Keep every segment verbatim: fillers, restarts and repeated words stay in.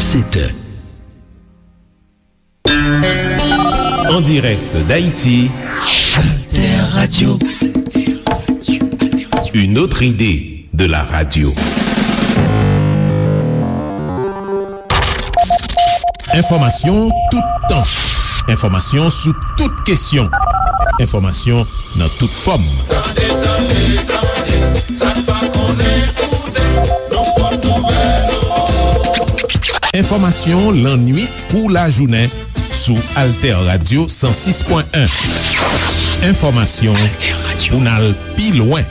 Sept heures. En direct d'Haïti, Alter Radio. Une autre idée de la radio. Enfòmasyon toutan. Enfòmasyon sou tout kesyon. Enfòmasyon nan tout fòm. Tande, tande, tande, sa n pa konnen koute, nou pot nouvèl. Enfòmasyon lannwit kou lajounen sou Alter Radio san sis pwen en. Enfòmasyon pou n al pi lwen.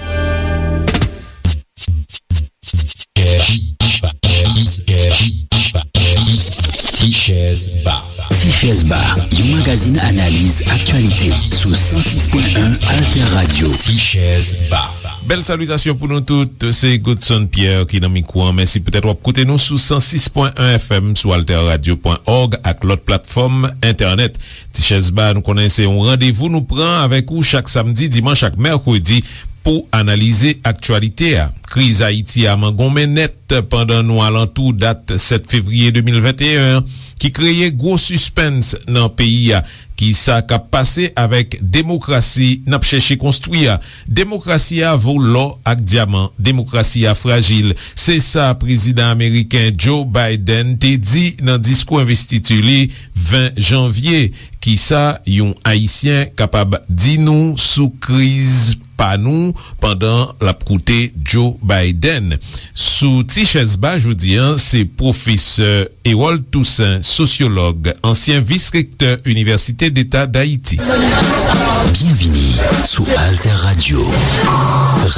Tichèz Ba. Tichèz Ba, yon magazin analiz aktyalite sou san sis pwen en Alter Radio. Tichèz Ba. Bèl salitasyon pou nou tout. Se Godson Pierre ki nan mikwo an. Mèsi poutèt w ap koute nou sou san sis pwen en F M, sou alter radio pwen org ak lòt platfòm entènèt. Tichèz Ba, nou konnen se yon randevou nou pran avèk ou chak samdi, dimanch ak mèkredi pou analize aktyalite a. Kriz Ayiti a mangonmen nèt pandan nou alantou dat sèt fevriye de mil venteyen an, ki kreye gwo sispens nan peyi a. Kisa k ap pase avèk demokrasi n ap chèche konstwi a? Demokrasi a vo lò ak dyaman. Demokrasi a frajil. Se sa prezidan ameriken Joe Biden te di nan diskou envestiti li ven janvye. Kisa yon Ayisyen kapab di nou sou kriz pa nou pandan l ap koute Joe Biden? Sou Ti Chèz Ba jodi a, se pwofesè Hérold Toussaint, sosyològ, ansyen vis-rektè Inivèsite Deta Dayiti. Byenvini sou Alter Radio.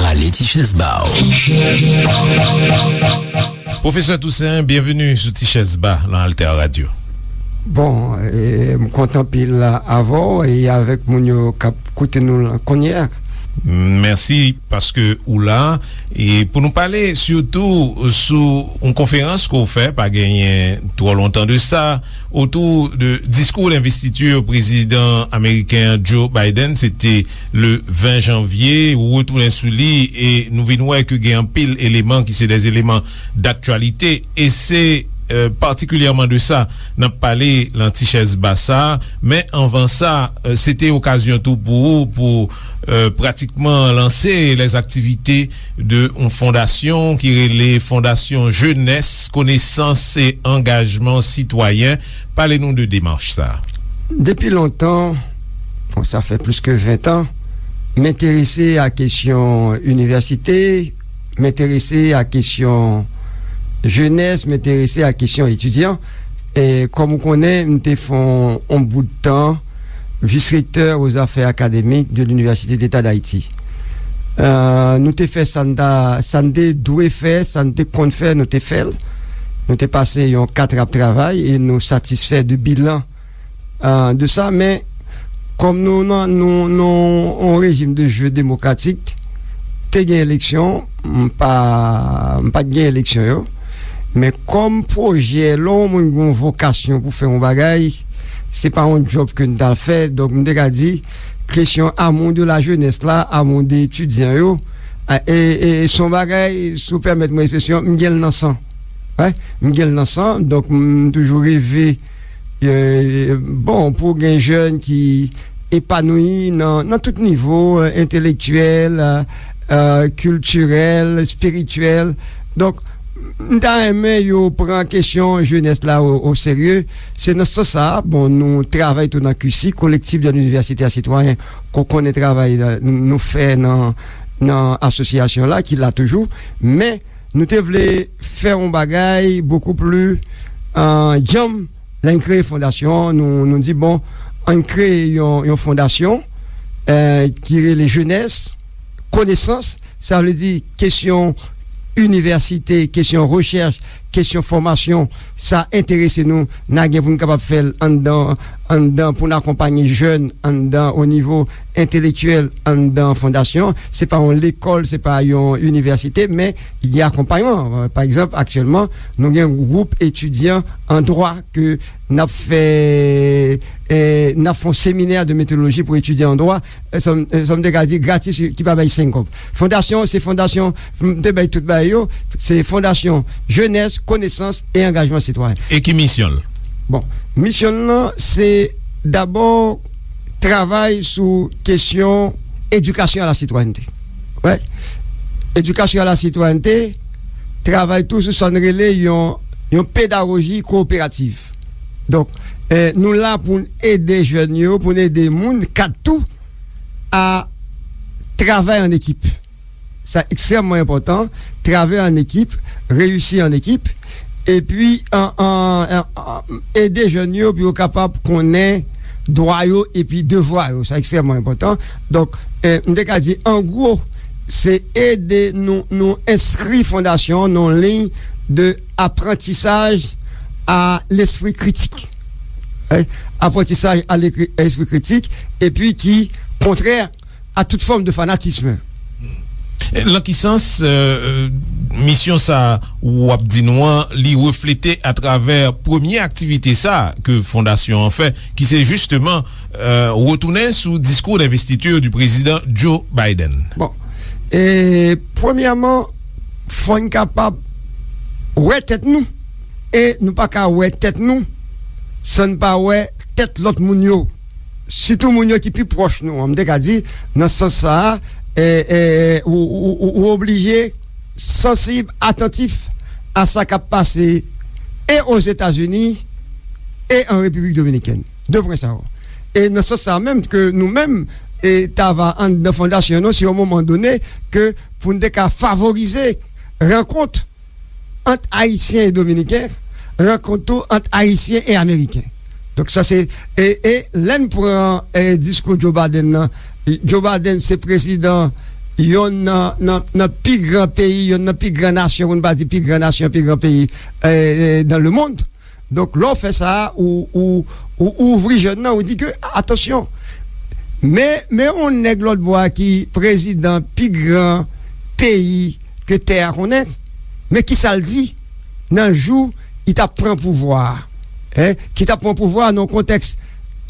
Rale ti chèz ba w. Pwofesè Toussaint, byenveni sou Ti Chèz Ba nan Alter Radio. Bon, e, m kontan anpil avè w e avèk moun yo k ap koute nou la kounye a. Mèsi paske ou la. E pou nou pale sitou sou yon konferans ke w fè, pa genyen twò lontan de sa, otou de diskou denvestiti prezidan ameriken an, Joe Biden, se te le ven janvye, ou retounen sou li, e nou vin wè ke gen anpil eleman ki se de eleman daktyalite, e se, e, patikilyèman de sa n ap pale nan Ti Chèz Ba sa. Men anvan sa, e, se te okazyon tou pou ou, pou, e, pratikman lanse lèzaktivite de yon fondasyon ki rele Fondasyon Jenès, Konesans e Angajman Sitwayen. Pale nou de demach sa. Depi lontan, bon, sa fè plis ke ven an, m enterese a kesyon inivèsite, m enterese a kesyon jenès, m enterese a kesyon etidyan. E kòm ou konnen, m te fè yon, yon bout tan vis-rektè aux affaires académiques de l'Université d'État d'Haïti. E, nou te fè sa n ta, sa n te dwe fè, sa n te konn fè, nou te fè l. Nou te pase yon kat ap travay e nou satisfè de bilan, e, de sa. Men, kòm nou nan, nou, nou yon rejim de jeu démocratique, te gen eleksyon, m pa, m pa t gen eleksyon yo. Men kòm pwojè, lè yon moun gen yon vokasyon pou fè yon bagay, se pa yon djòb ke n t al fè. Donk, m te ka di, kesyon amour de la jeunesse la, amour de etidyan yo, e, e, e se yon bagay, si w pèmèt mwen ekspresyon, m gen l nan san. Wi, m gen l nan san, donk m toujou reve, e, bon, pou gen jèn ki epanouyi nan, nan tout nivo, e, entelektyèl, e, e, kiltirèl, espirityèl. Donk, m ta renmen yo pran kesyon jenès la o, o serye. Se nan sans sa a, bon, nou travay tou nan Q C, Collectif de l'Université à Citoyens, ke w konnen travay la, nou, nou fè nan, nan asosyasyon la, ki la toujou. Men, nou te vle fè yon bagay bokou pli, e, djanm. Lè n kreye fondasyon an, nou, nou di, bon, ann kreye yon, yon fondasyon, e, ki rele Jenès, Konesans, sa vle di kesyon inivèsite, kesyon rechèch, kesyon fòmasyon, sa enterese nou, n a gen pou n kapab fè l anndan, anndan pou n akonpaye jèn anndan o nivo entelektyèl anndan fondasyon an. Se pa yon lekòl, se pa yon inivèsite, men gen akonpayman. Pa egzanp, aktyèlman, nou gen yon gwoup etidyan an dwa ke n ap fè, eh, n ap fè yon seminè de metodoloji pou etidyan an dwa, eh, sa m, eh, sa m te ka di gratis, ki pa bay senk kòb. Fondasyon, se fondasyon, m te bay tout bagay yo, se fondasyon jenès, konesans e angajman sitwayen. E ki misyon l? Bon, misyon l lan, se dabò travay sou kesyon éducation à la citoyenneté. Wè. Éducation à la citoyenneté, travay tou sou sa n rele yon, yon pedagoji kowoperativ. Donk, eh, nou la pou n ede jèn yo, pou n ede moun, kad tou, a travay an ekip. Sa ekstrèmman enpòtan, travay an ekip, reyisi an ekip, epi an, an, an, an, ede jèn yo pou yo kapab konnen dwa yo epi devwa yo. Sa ekstrèmman enpòtan. Donk, eh, m te ka di, an gwo, se ede nou, nou enskri fondasyon an nan yon liy de apprentissage à l'esprit critique. Hein? Apprentissage à l'esprit critique, epi ki kontrè a tout fòm de fanatism. Lan ki sans, euh, misyon sa w ap di nou an, li reflete atravè premye aktivite sa ke fondasyon an fè, ki se jisteman, euh, retounen sou diskou denvestiti di prezidan Joe Biden? Bon, e premyèman, fò n kapab wè tèt nou, e nou pa ka wè tèt nou san n pa wè tèt lòt moun yo. Sitou moun yo ki pi pwòch nou an. M te ka di, nan sans sa a, eh, eh, ou, ou, ou, ou oblije sansib, atantif a sa k ap pase e Ozetazini e an Repiblik Dominikèn. De pwen sa yo. E nan sans sa a menm ke nou menm, e ta va anndan fondasyon nou, si yon moman done, ke pou n te ka favorize rankont ant Ayisyen e Dominiken, rankont tou ant Ayisyen e Ameriken. Donk sa se, e, e lè n pran, e, diskou Joe Biden nan, Joe Biden se prezidan yonn nan, nan, nan pi gran peyi, yonn nan pi gran nasyon, pou n pa di pi gran nasyon, pi gran peyi, e, e, dans le monde. Donk lè w fè sa, ou, ou, ou, ou ouvri jèn nan, ou di ke, atansyon, men, men yon nèg lòt bò a ki prezidan pi gran peyi ke tè a konnen, men kisa l di nan jou li t ap pran pouvwa a, en, ki t ap pran pouvwa a nan yon kontèks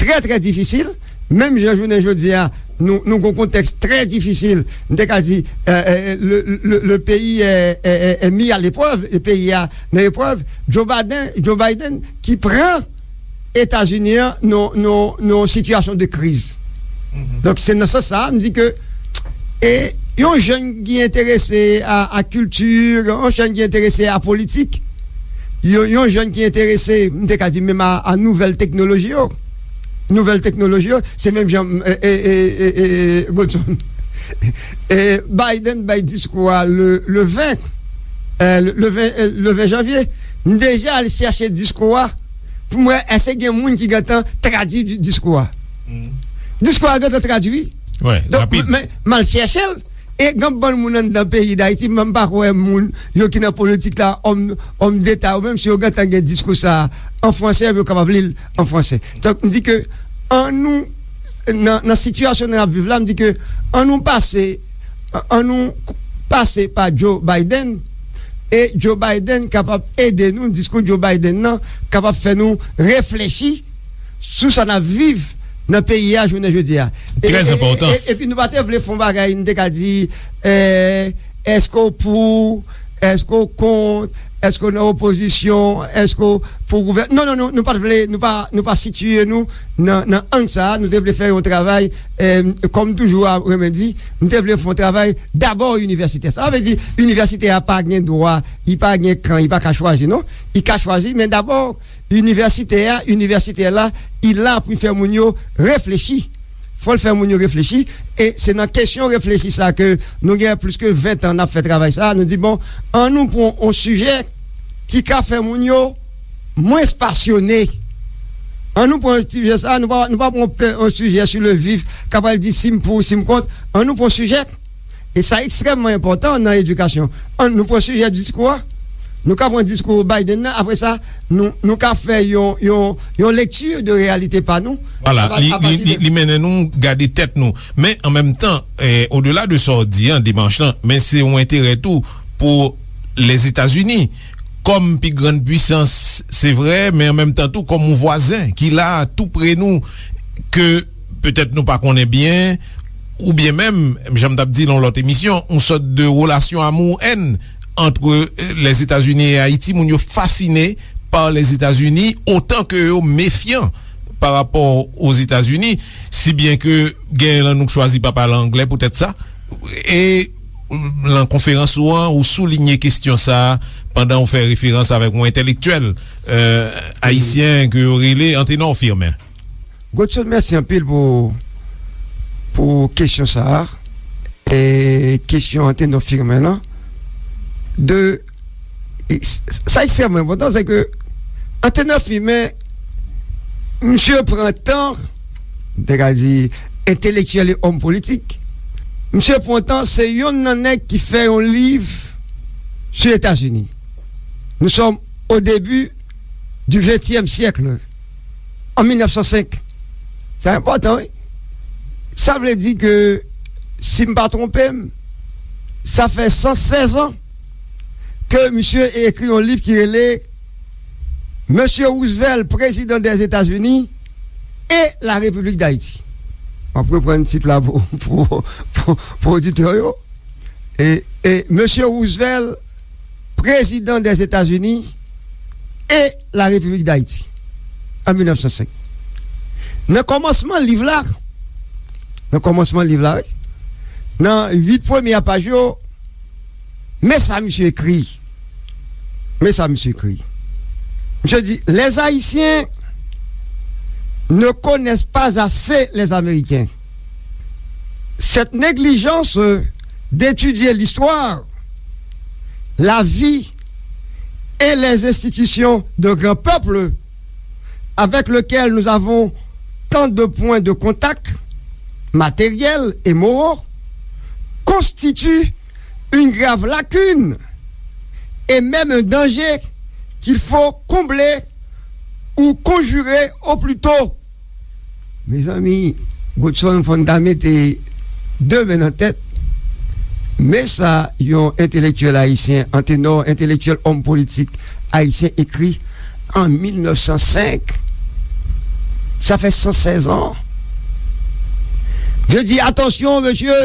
trè, trè difisil, menm jan jounen jodi a, nou, nou gen yon kontèks trè difisil, m te ka di, eh, eh, le, le, le pays est, est, est, est mis à l'épreuve, le peyi a nan eprèv, Joe Biden, Joe Biden ki pran Etazini an nan, nan, nan yon sitiyasyon de kriz. Donk, se nan sans sa a, m di ke, e, yon jèn ki enterese a, a kilti, yon jèn ki enterese a politik, yon, yon jèn ki enterese, m te ka di menm a, a nouvèl teknoloji yo. Nouvèl teknoloji yo, se menm jan, e, e, Godson. E, Biden bay diskou a le, le ven, e, le, le ven, e, le ven janvye. M deja al chèche diskou a pou m wè èske gen moun ki gentan tradui di-, diskou a. Diskou a gentan tradui. Donk, rapid. Men, m al chèche l. E gen bann moun anndan peyi Dayiti, men m pa kwè moun yo ki nan politik la, òm, òm deta yo, menm si yo gentan gen diskou sa a an franse, yo kapab li l an franse. Donk, m di ke annou, nan, nan sitiyasyon n ap viv la, m di ke annou pase, annou pase pa Joe Biden, e Joe Biden kapab ede nou, diskou Joe Biden nan kapab fè nou reflechi sou sa n ap viv nan peyi a jounen jodi a. E, trè e, enpòtan. E, e, epi nou pa te vle fè yon bagay, nou te ka di, eh, èske w pou, èske w kont, èske w nan opozisyon, èske w pou gouvèn-, non, non, non, nou pa t vle, nou pa, nou pa sitiye nou nan, nan ang sa a, nou te vle fè yon travay, eh, kòm toujou a renmen di, nou te vle fè yon travay dabò inivèsitè. Sa vle di, inivèsitè a pa gen dwa, li pa gen kan, li pa ka chwazi, non. Li ka chwazi, men dabò, inivèsitè a, inivèsitè la, li la pou fè moun yo reflechi. Fò l fè moun yo reflechi. E se nan kesyon reflechi sa ke nou gen plis ke ven tan n ap fè travay sa. Nou di, bon, annou pran yon sijè ki ka fè moun yo mwens pasyone. Annou pran sijè sa, nou pa, nou pa pran pe-, yon sijè sou le vif, k ap pral di si m pou, si m kont. Annou pran sijè, e sa ekstrèmman enpòtan nan edikasyon. Annou pran sijè diskou a. Nou ka pran diskou Biden nan, apre sa, nou, nou ka fè yon, yon, yon lekti de reyalite pa nou. Vwala, li, li, li, li mennen nou gade tèt nou. Men, an menm tan, eh, odela de sa w di an, demach lan, men se yon enterè tou pou Lèzetazini, kòm pi grann pwisans, se vre, men an menm tan tou, kòm yon vwazen ki la tou pre nou, ke petèt nou pa konnen byen, oubyen menm, jan m t ap di nan yon lòt emisyon, yon sòt de relasyon amour-haine ant, eh, Lèzetazini e Ayiti. Moun yo fasine pa Lèzetazini, otan ke yo mefyan pa rapò Ozetazini, si byen ke genyen nan nou k chwazi pa pale anglè poutèt sa. E nan konferans ou an, ou soulinye kesyon sa a pandan ou fè referans avèk yon entèlektyèl, eh, ayisyen ke yo rele Antenor Firmin. Godson, mèsi anpil pou, pou kesyon sa a. E kesyon Antenor Firmin lan. De, e s-, sa ekstrèmman enpòtan, se ke Antenor Firmin, misye pran tan, m te ka di, entelektyèl e òm politik, misye pran tan, se yonn nan nèg ki fè yon liv sou Etazini. Nous sommes au début du vingtième siècle, en mil nèf san senk. Sa enpòtan, wi. Sa vle di ke, si m pa twonpe m, sa fè san sèz an ke misye ekri yon liv ki rele Monsieur Roosevelt, Président des États-Unis et la République d'Haïti. M ap reprann tit la pou, pou, pou, pou oditè yo. E, e Monsieur Roosevelt, Président des États-Unis et la République d'Haïti, an mil nèf san senk. Nan kòmansman liv la, nan kòmansman liv la, wi, nan uit premye paj yo, men sa misye ekri. Men sa misye ekri. Misye di, Les Haïtiens ne connaissent pas assez les Américains. Cette négligence d'étudier l'histoire, la vie et les institutions d'un grand peuple avec lequel nous avons tant de points de contact matériels et moraux constitue une grave lacune et même un danger qu'il faut combler ou conjurer au plus tôt. Mezanmi, Godson, fò n ta mete de men nan tèt. Men sa yon entelektyèl ayisyen, Antenor, entelektyèl, òm politik ayisyen ekri an mil nèf san senk. Sa fè san sèz an. Je dis, attention, monsieur,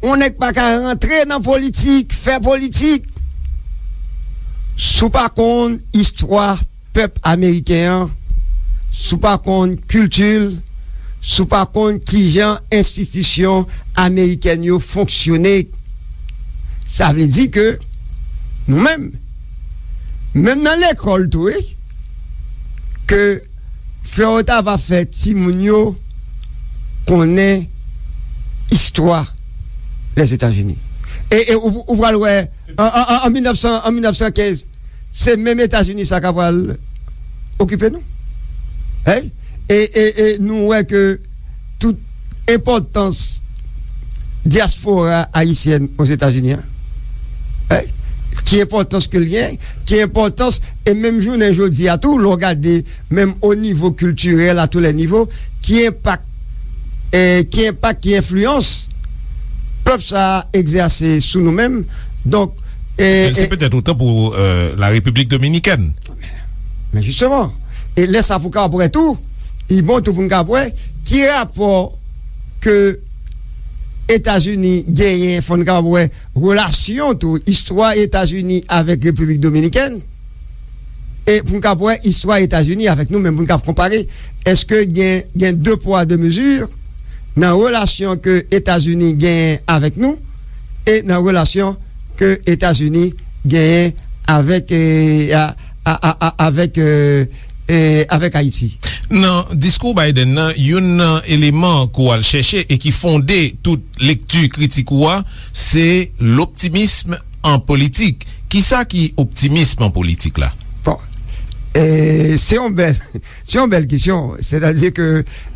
yon nèg pa ka rantre nan politik, fè politik, si w pa konn istwa pèp ameriken an, si w pa konn kilti l, si w pa konn kijan enstitisyon amerikèn yo fonksyone. Sa vle di ke nou menm, menm nan lekòl tou, wi, ke Florent Tava fè timoun yo konnen istwa Lèzetazini. E, e ou, ou pral wè, an, an, an, an mil nèf san, an mil nèf san kenz, se menm Etazini sa k ap pral okipe nou. Hey? E, e, e nou wè ke tout enpòtans dyaspora ayisyèn Ozetazini an, hey? Ki enpòtans ke l gen, ki enpòtans, e menm jounen jodi a tou, lè w gade menm o nivo kiltirèl, a tou lè nivo, ki enpak, eh, ki enpak, ki enfliyans pèp sa a egzèse sou nou menm. Donk, eh, se eh, petèt otan pou, eh, la Repiblik Dominikèn. Men jisteman, e lè sa pou ka wè tou, li bon tou pou n ka wè ki rapò ke Etazini genyen, fò n ka wè relasyon tou, istwa Etazini avèk Repiblik Dominikèn, e pou n ka wè istwa Etazini avèk nou menm, pou n ka konpare, èske gen, gen de pwa, de mezi nan relasyon ke Etazini genyen avèk nou e nan relasyon ke Etazini genyen avèk, eh, a, a, a, a, avèk, eh, eh, avèk Ayiti. Nan diskou Biden nan, youn nan eleman ke w al chèche e ki fonde tout lekti kritik ou a, se loptimism an politik. Kisa ki optimism an politik la? Bon, eh, se yon bèl, se yon bèl kesyon. Sètadi ke,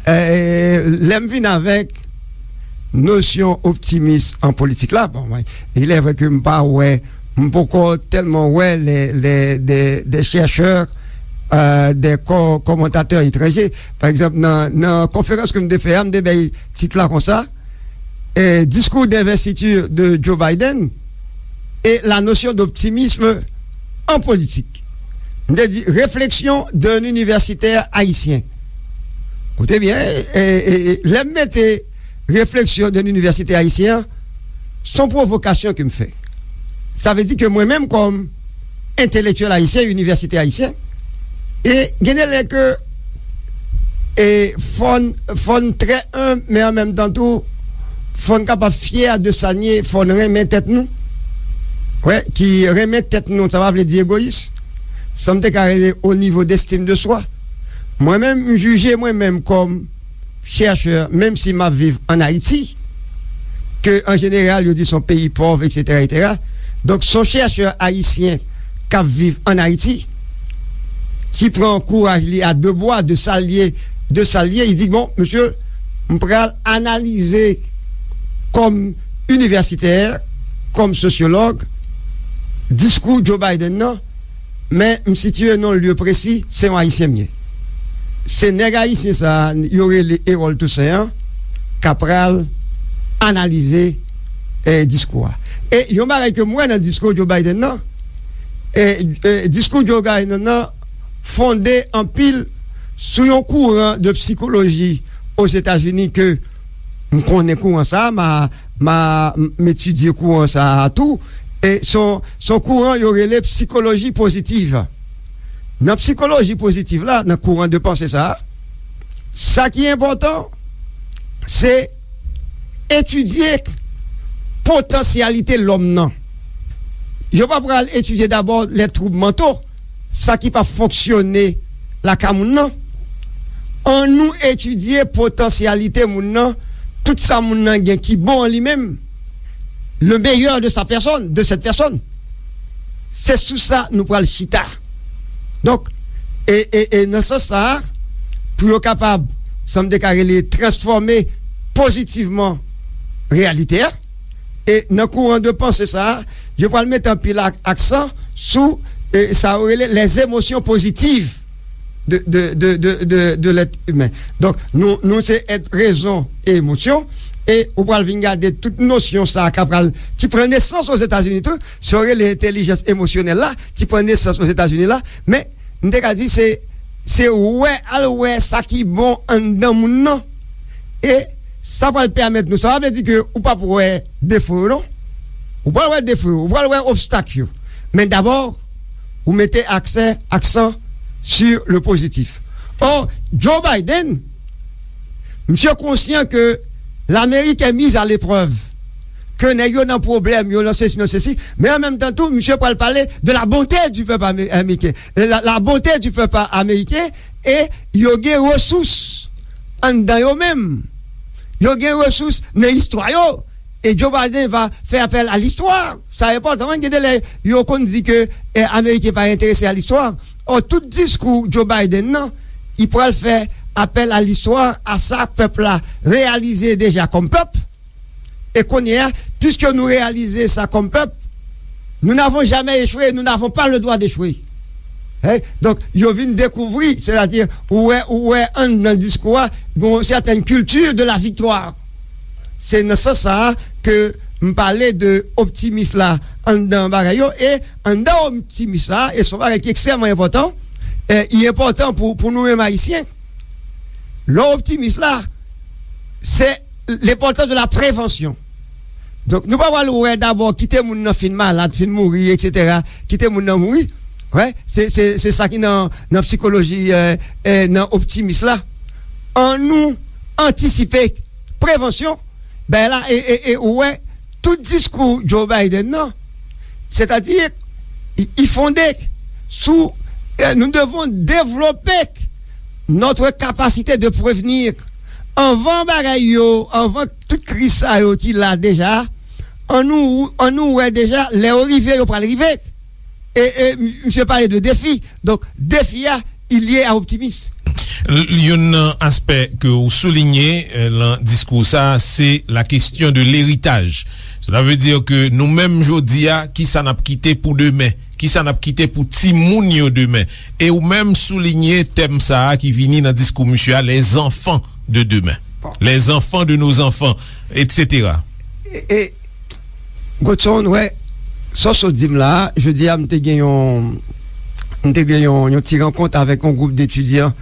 eh, lè m vin avèk nosyon optimis an politik la, bon, mwen, il est vrai ke m pa wè m poko tèlman wè lè, lè, de, de chèchè, euh, de kò, kòmantatè etranje. Pa egzanp, nan, nan konferans ke m te fè a, m te bay tit la konsa, eh, Discours d'investiture de Joe Biden et la notion d'optimisme en politique. M te di, Réflexion d'un universitaire haïtien. Koute byen, e, e, e, lè m mete refleksyon de inivèsite ayisyen an, se yon pwovokasyon ke m fè. Sa vle di ke mwen menm, kòm entelektyèl ayisyen, inivèsite ayisyen, e gen de lè ke, e fò n, fò n trè enb, men an menm tan tou, fò n kapab fyè de sa n ye, fò n renmen tèt nou. Wè, ki renmen tèt nou, sa pa vle di egoyis. Sa m te ka rele au niveau d'estime de soi. Mwen menm, m jije mwen menm kòm chèchè, menm si m ap viv ann Ayiti, ke an jeneral, yo di se yon peyi pòv, etsetera, etsetera. Donk, se yon chèchè ayisyen k ap viv ann Ayiti, ki pran kouraj li a de bwa, de sa l ye, de sa l ye, li di, bon, mesye, m pral analize kòm inivèsitè, kòm sosyològ, diskou Joe Biden nan, men m sitiye nan yon lye presi, se yon Ayisyen m ye. Se nèg ayisyen sa a, yo rele Erol Toussaint an, k ap pral analize, eh, diskou a. E yon bagay ke m wè nan diskou Joe Biden nan, eh, eh, diskou Joe Biden nan fonde anpil sou yon kouran de sikoloji Ozetazini ke m konnen kouran sa a, m a, m a, m etidye kouran sa a tou. E se yon, se yon kouran yo rele sikoloji pozitiv. Nan sikoloji pozitiv la, nan kouran de panse sa a, sa ki enpòtan, se etidye potansyalite lòm nan. Yo pa pral etidye dabò lè twoub manto, sa ki pa fonksyone lakay moun nan. Annou etidye potansyalite moun nan, tout sa moun nan gen ki bon an li menm, le meilleur de sa personne, de cette personne. Se sou sa nou pral chita. Donk, e, e, e nan sans sa a, pou yo kapab, sa m te ka rele, transfòme pozitivman reyalite a, e nan kouran de panse sa a, yo pral mete anpil ak-, aksan sou, e, sa yo rele les émotions positives de, de, de, de, de, de l'être humain. Donk, nou, nou se èt rezon e emosyon, e ou pral vin gade tout nosyon sa a k ap pral, ki pran nesans Ozetazini tou, sa yo rele entèlijans emosyonèl la, ki pran nesans Ozetazini la, men m te ka di se, se wè, al wè sa ki bon anndan moun nan. E sa pral pèmèt nou, sa pa vle di ke ou p ap wè defo yo, non. Ou pral wè defo yo, ou pral wè obstak yo. Men dabò, ou mete aksè, aksan sur le positif. Or, Joe Biden, misye konsyan ke Lamerik est mise à l'épreuve, ke nèg yo nan pwoblèm, yo nan sesi, nan sesi, men an menm tan tou, misye pral pale de la bonté du peuple amé-, américain. La, la bonté du peuple américain, e yo gen resous anndan yo menm. Yo gen resous nan istwa yo. E Joe Biden va fè apèl a listwa. Sa enpòtan, wi, gen de lè yo konn di ke, eh, Ameriken pa enterese a listwa. Ò, tout diskou Joe Biden nan, li pral fè apèl a listwa, a sa pèp la reyalize deja kòm pèp. E kounye a, piske nou reyalize sa kòm pèp, nous n'avons jamais échoué, nous n'avons pas le droit d'échouer. Hein? Donk, yo vin dekouvri, sètadi, ou wè, ou wè anndan diskou a, gon sètèn kilti de la viktwa. Se nan sans sa a ke m pale de optimis la anndan bagay yo, e anndan optimis la, e se yon bagay ki ekstrèmman enpòtan, e li enpòtan pou, pou nou menm Ayisyen. Lè w optimis la, se lenpòtans de la prevansyon. Donk, nou pa pral wè dabò kite moun nan fin malad, fin mouri, etsetera. Kite moun nan mouri. Wè, se, se, se sa ki nan, nan sikoloji, eh, eh, nan optimis la. Annou antisipe, prevansyon, bagay la, e, e, e ou wè, tout diskou Joe Biden nan, sètadi, li, li fonde sou, eh, nous devons développer notre capacité de prévenir. Anvan bagay yo, anvan tout kriz sa yo ki la deja, annou, annou wè deja, lè yo rive, yo pral rive. E, e, m-, misye pale de defi. Donk, defi a, li lye a optimis. L-, youn nan aspè ke w soulinye, eh, lan diskou sa, se la question de l'héritage. Cela veut dire que nou menm jodi a, ki sa n ap kite pou demen? Ki sa n ap kite pou timoun yo demen? E ou menm soulinye tèm sa a ki vini nan diskou misye a, les enfants de demain. Les enfants de nos enfants, et cetera. E, e, Godson, wè, sa w sot di m la a, jodi a, m te gen yon, m te gen yon, yon ti rankont avèk yon gwoup detidyan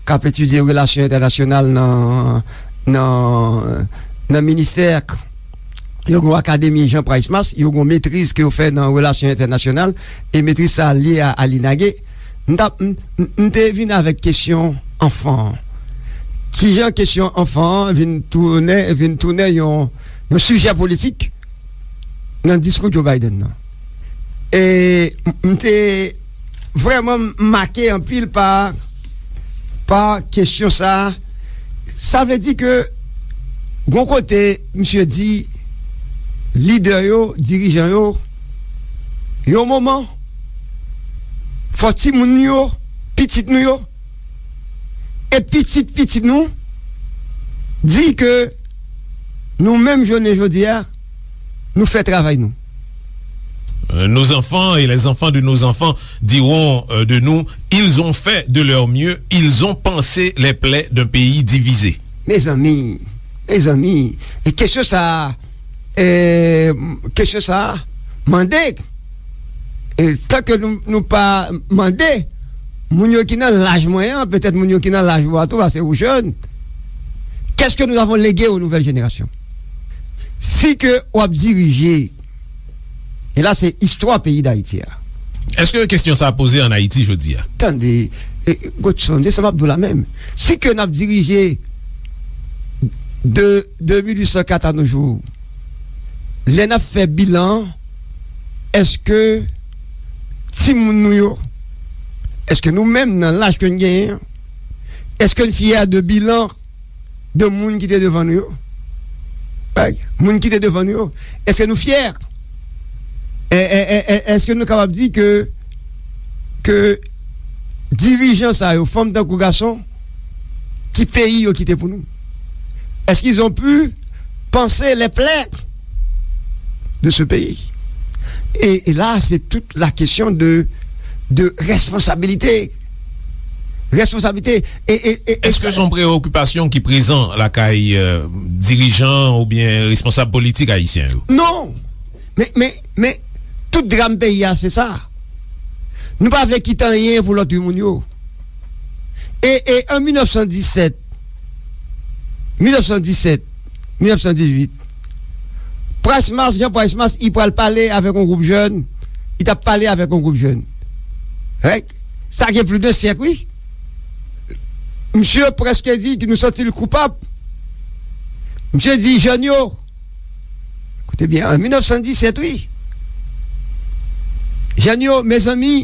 k ap etidye relasyon entènasyonal nan, nan, nan ministè. Yo gen yon akademi Jean Price Mars, yo gen yon metriz ke yo fè nan relasyon entènasyonal, e metriz sa a lye a, a l'INAGE. M t ap, m, m, m te vin avèk kesyon anfan an. Kijan kesyon anfan an vin tounen, vin tounen yon, yon sijè politik nan diskou Joe Biden nan. E m, m te vrèman make anpil pa, pa kesyon sa a. Sa vle di ke, gon kote, misye di, lidè yo, dirijan yo, yon moman, fò timoun yo, pitit nou yo, e pitit pitit nou, di ke nou menm jounen jodi a, nou fè travay nou. Euh, nos enfants et les enfants de nos enfants diront, euh, de nous, ils ont fait de leur mieux, ils ont pansé les plaies d'un pays divisé. Mezanmi, mezanmi, e kesyon sa a, e, kesyon sa a, mande, e, tanke nou, nou pa mande, moun yo ki nan laj mwen an, petèt moun yo ki nan laj ou a tou, paske ou jèn, qu'est-ce que nous avons légué aux nouvelles générations? Si ke w ap dirije, e la se istwa peyi Dayiti a. Èske kesyon sa a poze ann Ayiti jodi a? Tande, e, Godson, se sa m ap di w la menm. Si ke n ap dirije de, de mil uit san kat a nos jours, lè n ap fè bilan, èske timoun nou yo, èske nou menm nan laj ke n genyen an, èske n fyè de bilan de moun ki te devan nou yo? Like, moun ki te devan nou yo, èske nou fyè? E, e, e, e, èske nou kapab di ke, ke dirijan sa yo, fanm tankou gason, ki peyi yo kite pou nou? Est-ce qu'ils ont pu panser les plaies de ce pays? Et, et là, c'est toute la question de, de responsabilité. Responsabilité. E, e, e, e Èske sa se yon preyokipasyon ki prezan lakay, euh, dirijan oubyen responsab politik ayisyen yo? Non. Men, men, men, tout dram peyi a, se sa. Nou pa vle kite anyen pou lòt moun yo. E, e an mil nèf san disèt, mil nèf san disèt, mil nèf san dizuit, Price Mars, Jean Price Mars, li pral pale avèk yon gwoup jèn, li t ap pale avèk yon gwoup jèn. Règ, sa gen plis de syèk, wi. Misye prèske di ke nou santi l koupab. Misye di, jèn yo, koute byen, an mil nèf san disèt, wi. Jèn yo, mezanmi,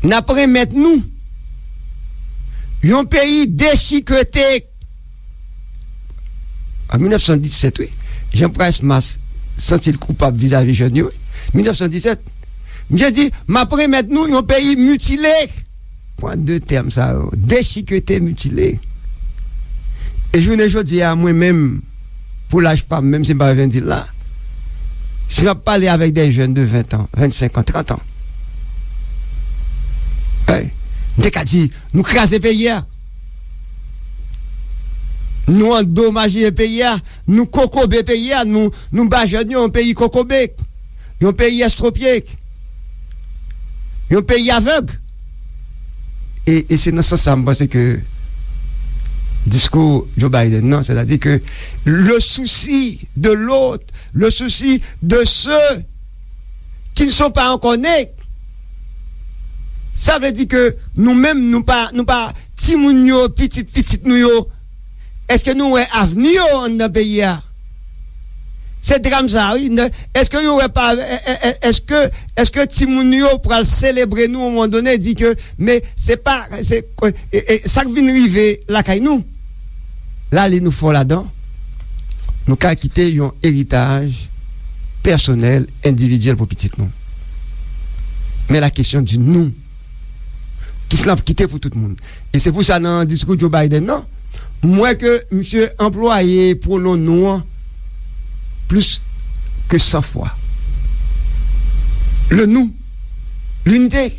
n ap renmèt nou yon peyi dechikete. An mil nèf san disèt, wi. Jean Price Mars santi l koupab vizavi jèn yo, wi. Mil nèf san disèt. Misye di, m ap renmèt nou yon peyi mitile. Pran de tèm sa yo, dechikete, mitile. E jounen jodi a, mwen menm, pou laj pa m, menm si m pa vin di l la, si m ap pale avèk de jèn de ven an, vennsenk an, trant an, ey, m te ka di, nou kraze peyi a. Nou andomaje peyi a, nou kokobe peyi a, nou, nou ba jèn yo yon peyi kokobe, yon peyi estwopye, yon peyi avèg. E, e se nan sans sa m panse ke diskou Joe Biden nan, sètadi ke le souci de l'autre, le souci de ceux qui ne sont pas encore nés. Sa vle di ke nou menm, nou pa, nou pa timoun yo, pitit pitit nou yo. Èske nou wè avni yo anndan peyi a? Se dram sa, wi. Èske yo wè pa, èske, èske timoun yo pral selebre nou yon moman done, di ke, men se pa, se, e, e, sa k vin rive lakay nou? Lale nou fò ladan, nou ka kite yon eritaj pèsonèl, endividyèl pou pitit nou. Men la kesyon di nou, Ki se l ap kite pou tout moun. E se pou sa, nan diskou Joe Biden nan, m wè ke misye anplwaye pwonon nou an plis ke san fwa. Le nous, l'unité.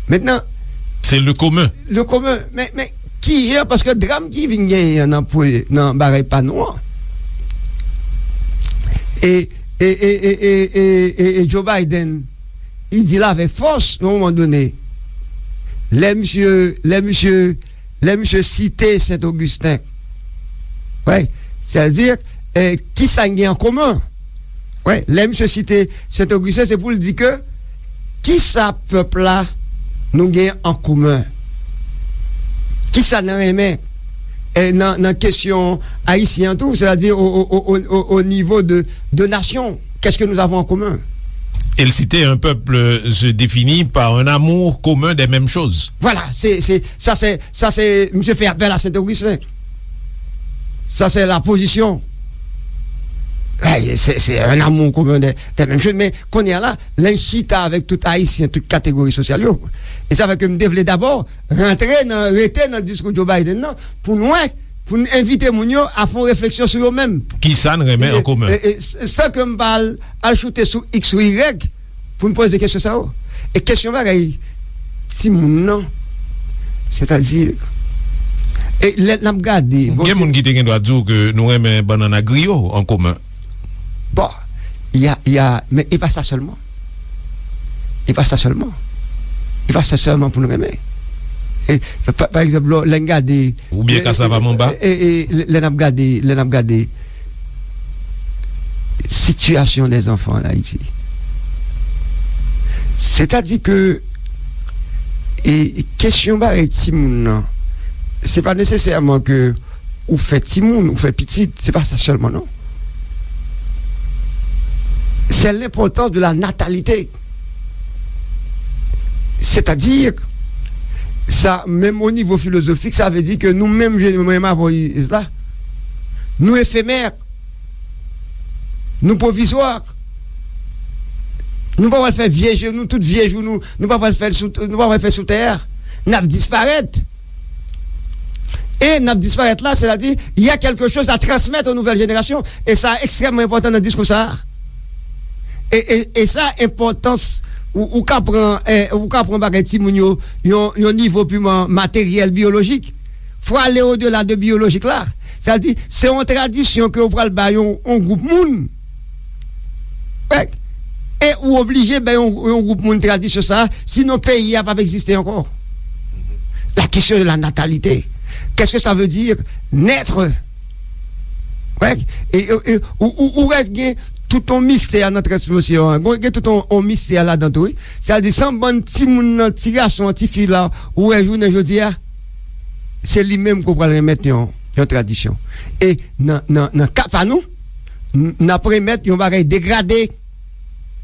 Mentnan, se le commun. Le commun. Men, men, kijan, paske dram ki vin genyen nan, nan bagay pa nou an, e, e, e Joe Biden, li di l avèk fòs, yon moman done, lè misye, lè misye, lè misye site Sen Ogisten, wè, sètadi, eh, kisa n gen an komen? Wè, lè misye site Sen Ogisten, se pou l di ke kisa pèp la nou gen an komen? Kisa n renmen, eh, nan, nan kesyon ayisyen an tou, sètadi o, o, o, o, o, o nivo de, de nasyon? Qu'est-ce que nous avons en commun? Et citer un peuple se définit par un amour commun des mêmes choses. Voilà, c'est, c'est, ça c'est, ça c'est, misye fè apèl a Sen Ogisten. Ça c'est la position. Eh, c'est, c'est un amour commun des, des mêmes choses. Men kounye a la, lè n chita avèk tout Ayisyen, tout kategori sosyal yo. E sa fè ke m te vle dabò rantre nan, rete nan diskou Joe Biden nan, pou n wè, pou n envite moun yo a fè yon refleksyon sou yo menm. Kisa n renmen an komen? E, e, s-, san ke m pa al, al choute sou X ou Y pou n poze kesyon sa yo. E kesyon bagay timoun nan, sètadi, e lè n ap gade, bon, gen moun ki te gen dwa di w ke nou renmen bannann ak griyo an komen. Bon, y a, y a, men e pa sa sèlman. E pa sa sèlman. E pa sa sèlman pou n renmen. E, pa, pa egzanp, lò, lè n gade, oubyen e, kasav a manba, e, e, lè, lè n ap gade, lè n ap gade sitiyasyon dè zanfan an Ayiti. Sètadi ke, e, kesyon bagay timoun nan, se pa nesesèman ke ou fè timoun, ou fè pitit, se pa sa sèlman, non. C'est l'importance de la natalité. Sètadi, sa, menm o nivo filozofik, sa vle di ke nou menm, je, menm avè Isla, nou efemè, nou pwovizwa. Nou pa pral fè vye jou, nou tout vye jou, nou, nou pa pral fè l sou, nou pa pral fè sou tè a. N ap disparèt. E n ap disparèt la, sètadi, il y a quelque chose à transmettre aux nouvelles générations. E sa ekstrèmman enpòtan nan diskou sa a. E, e, e sa, enpòtans, ou, ou ka pran, eh, ou ka pran bagay timoun yo, yon, yon nivo piman materyèl, biyolojik. Fò ale odela de biyolojik la. Sètadi, se yon tradisyon ke ou pral bay yon, yon gwoup moun. Wè. E ou oblije bay yon, yon gwoup moun tradisyon sa, sinon peyi a p ap egziste ankò. La question de la natalité. Qu'est-ce que ça veut dire naître? Wè. E, e, e, ou, ou, ou wè gen tout yon mistè nan transmisyon an. Gen, gen tout yon, yon mistè ladan tou, wi. Sètadi, se yon bann timoun nan, ti gason an, ti fi la, ou wè jounen jodi a, se li menm ke w pral remèt yon, yon tradisyon. E nan, nan, nan ka pa nou, n-, n ap remèt yon bagay degrade.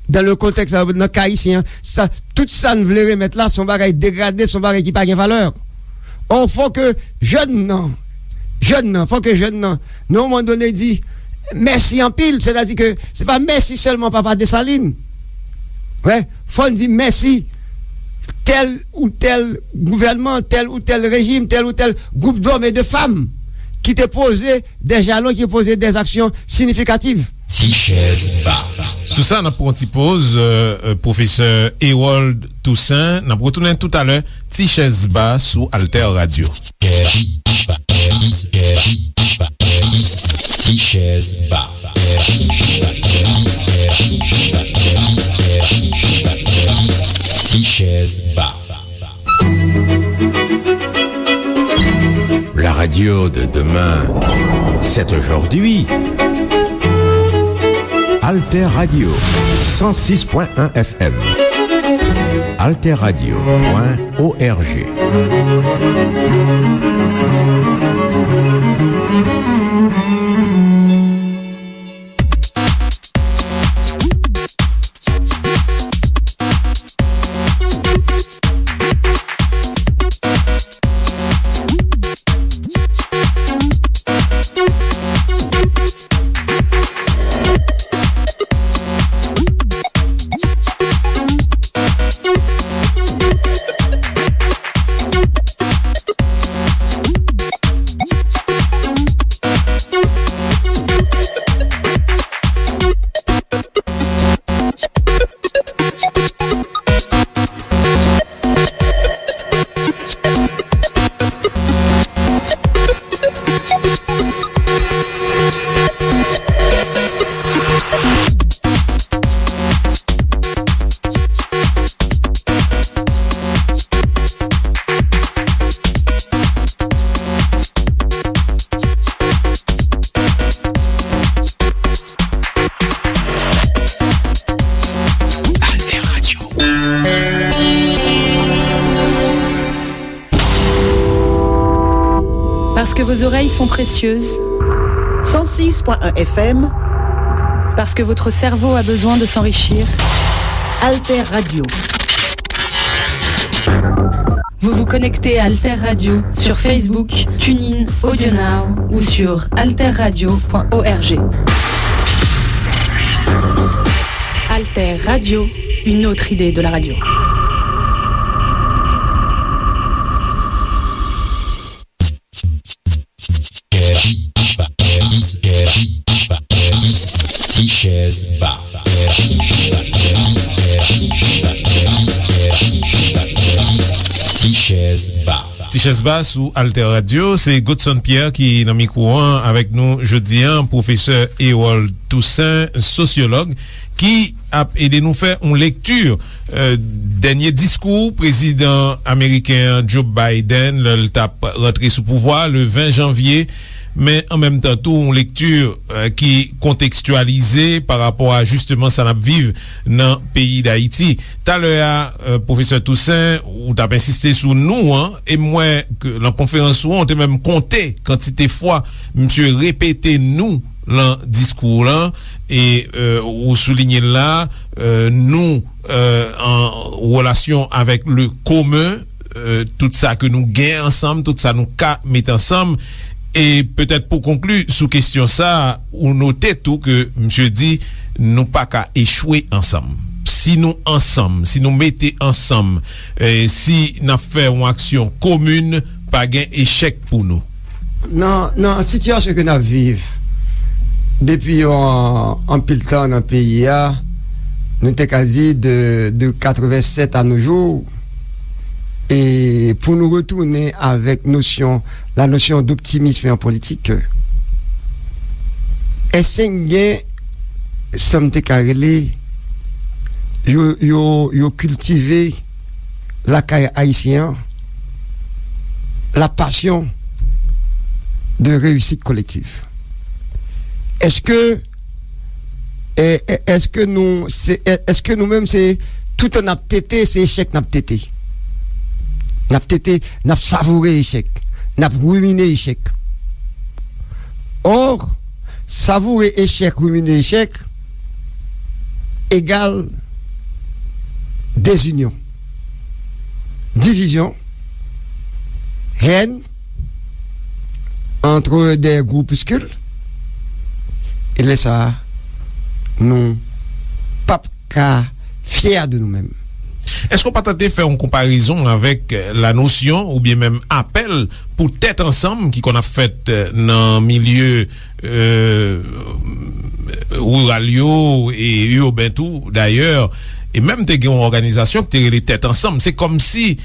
Dan le kontèks, nan ka ayisyen an, sa, tout sa n vle remèt la, se yon bagay degrade, se yon bagay ki pa gen valè. Ò, fò ke jèn nan, jèn nan, fò ke jèn nan, nan yon moman done, di mèsi anpil, sètadi ke se pa mèsi sèlman Papa Desalin. Wè, fò n di mèsi tèl ou tèl gouvènman, tèl ou tèl rejim, tèl ou tèl gwoup dòm e de fanm ki te poze dè jalon, ki poze dè aksyon siyifikatif. Ti chèz ba. Sou sa, n ap pran yon ti poz, euh, euh, pwofesè Herold Toussaint. N ap retounen toutalè. Ti chèz ba sou Alter Radio. Ti chèz ba. Ti chèz ba. La radio de demain, c'est aujourd'hui. Alter Radio, cent six point un F M. Alter Radio point O R G. Parce que vos oreilles sont précieuses. Cent six point un F M. Parce que votre cerveau a besoin de s'enrichir. Alter Radio. Vous vous connectez à Alter Radio sur Facebook, TuneIn, AudioNow ou sur alterradio point org. Alter Radio, une autre idée de la radio. Ti chèz ba. Ti chèz ba. Ti chèz ba sou Alter Radio, se Godson Pierre ki nan mikwo an avèk nou jodi an, pwofesè Erol Toussaint, sosyològ, ki ap ede nou fè yon lekti, euh, dènye diskou prezidan ameriken an Joe Biden lè l t ap rantre sou pouvwa le ven janvye, men an menm tan tou yon lekti, euh, ki kontekstyalize pa rapò a jisteman sa n ap viv nan peyi Dayiti. Talè a, euh, pwofesè Toussaint, ou t ap ensiste sou nou an, e m wè ke nan konferans ou an, ou te menm konte kantite fwa misye repete nou lan diskou w lan, e, euh, ou soulinye l la, euh, nou, euh, an relasyon avèk le commun, euh, tout sa ke nou gen ansanm, tout sa nou ka met ansanm. E petèt pou konkli sou kesyon sa, ou note tou ke misye di nou pa ka echwe ansanm. Si nou ansanm, si nou mete ansanm, e si n ap fè yon aksyon komin, pa gen echèk pou nou. Nan, nan sitiyasyon ke n ap viv depi yon anpil tan nan peyi a, nou te ka di de, de katrevensèt a nos jours, e pou nou retounen avèk nosyon, la notion d'optimisme en politique, èske gen, sa m te ka rele, yo, yo, yo kiltive lakay ayisyen an, la passion de réussite collective. Èske, è, è, èske nou, se, è, èske nou menm se toutan n ap tete, se echèk n ap tete? N ap tete, n ap savoure echèk, n ap rimine echèk. Or, savoure echèk, rimine echèk, egal dezinyon, divizyon, hèn, entre des groupuscules, e lè sa a, nou p ap ka fyè de nou menm. Èske w pa tante fè yon konparezon avèk, euh, la nosyon oubyen menm apèl pou tèt ansanm ki konn ap fèt, euh, nan milye, euh, riral yo e iben tou dayè, e menm te gen yon òganizasyon ki te rele Tèt Ansanm. Se kòmsi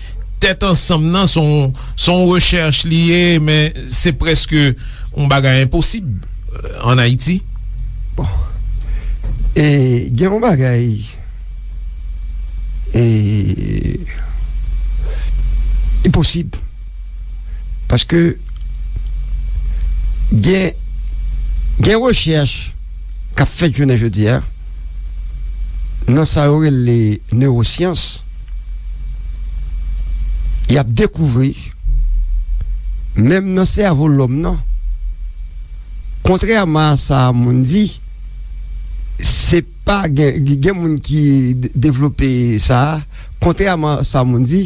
Tèt Ansanm nan se yon, se yon rechèch li ye, men se prèske yon bagay enposib, euh, ann Ayiti. Bon. E gen yon bagay, e, li posib. Paske gen, gen rechèch k ap fèt jounen jodi a nan sa yo rele newosyans. Y ap dekouvri, menm nan sèvo lòm nan, kontrèman a sa moun di, se pa gen, gen moun ki de-, devlope sa a. Kontrèman a sa moun di,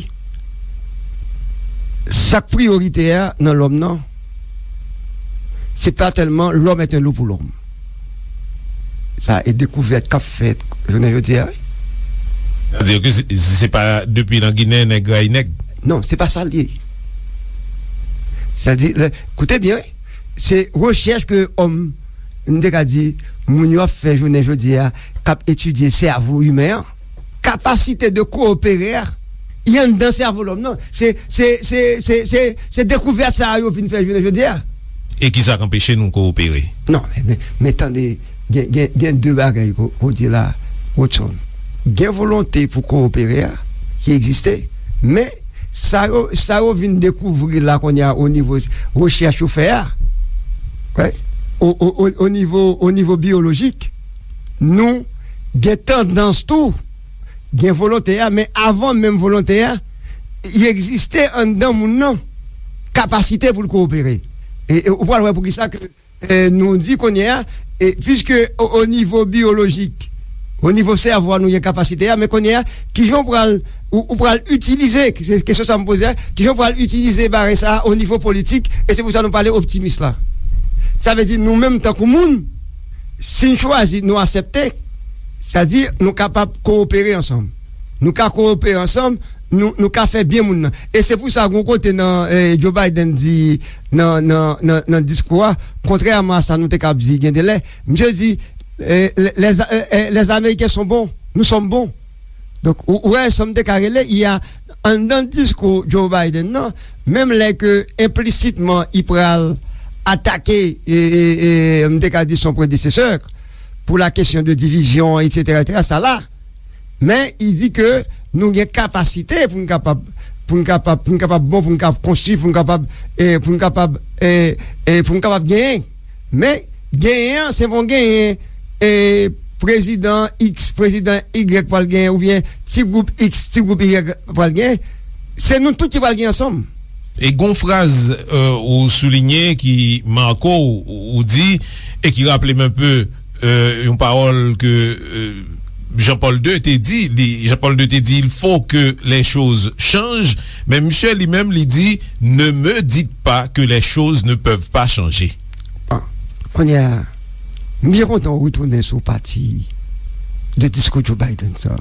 sa k priyoritè a nan lòm nan, se pa tèlman l'homme est un loup pour l'homme. Sa e dekouvèt k ap fèt jounen jodi a, wi. Sa di ke se, se pa depi nan Ginen nèg rayi nèg. Non, se pa sa l ye. Sa di, lè, koute byen, wi. Se rechèch ke òm, m te ka di, moun yo ap fè jounen jodi a, k ap etidye sèvo imen an, kapasite de koopere a, li anndan sèvo lòm nan. Se, se, se, se, se, se dekouvèt sa a yo vin fè jounen jodi a. E kisa k anpeche nou koopere? Non, men, men tande, gen, gen, gen de bagay ko-, kote la, Rodson. Gen volonte pou koopere a, ki egziste, men sa yo, sa yo vin dekouvri la kounye a o nivo rechèch yo fè a, right? O, o, o, o nivo, o nivo biyolojik, nou gen tandans tou, gen volonte a, men avan menm volonte a, li egziste anndan moun nan, kapasite pou l koopere. E, e ou pral wè poukisa ke, e, nou di kounye a, e, piske o, o nivo biyolojik, o nivo sèvo a nou gen kapasite a, men kounye a, kijan ou pral, ou, ou pral itilize, se kesyon sa m poze a, kijan ou pral itilize bagay sa a o nivo politik, e se pou sa nou pale optimis la. Sa vle di nou menm tankou moun, si n chwazi, nou aksepte, sa di nou kapab kowopere ansanm. Nou ka kowopere ansanm, nou, nou ka fè byen moun nan. E se pou sa, gon kote nan, eh, Joe Biden di nan, nan, nan, nan diskou a, kontrèman a sa nou te ka ap di gen de lè, misye di, eh, les, les, eh, eh, les Américains sont bons, nous sommes bons. Donk, ou, ou wè, sa m te ka rele, y a, anndan diskou Joe Biden nan, menm lè ke enplisitman, i pral atake, e, e, e, m te ka di son predesesè, pour la question de division, et cetera, et cetera, sa la. Men, i di ke nou gen kapasite pou n kapab, pou n kapab, pou n kapab bon, pou n kapab konstwi, pou n kapab, e, pou n kapab, e, e, pou n kapab genyen. Men, genyen an, se pa yon genyen, e, prezidan X, prezidan Y pral genyen, oubyen ti gwoup X, ti gwoup Y pral genyen. Se nou tout ki pral genyen ansanm. E gon fraz, euh, ou soulinye ki make w, ou di, e ki raple m enpe, euh, yon pawòl ke, euh, Jean-Paul deux te di, li, Jean-Paul deux te di, il faut que les choses changent, men misye li menm, li di, ne me dites pas que les choses ne peuvent pas changer. Bon, kounye a, m byen kontan w retounen sou pati de diskou Joe Biden sa.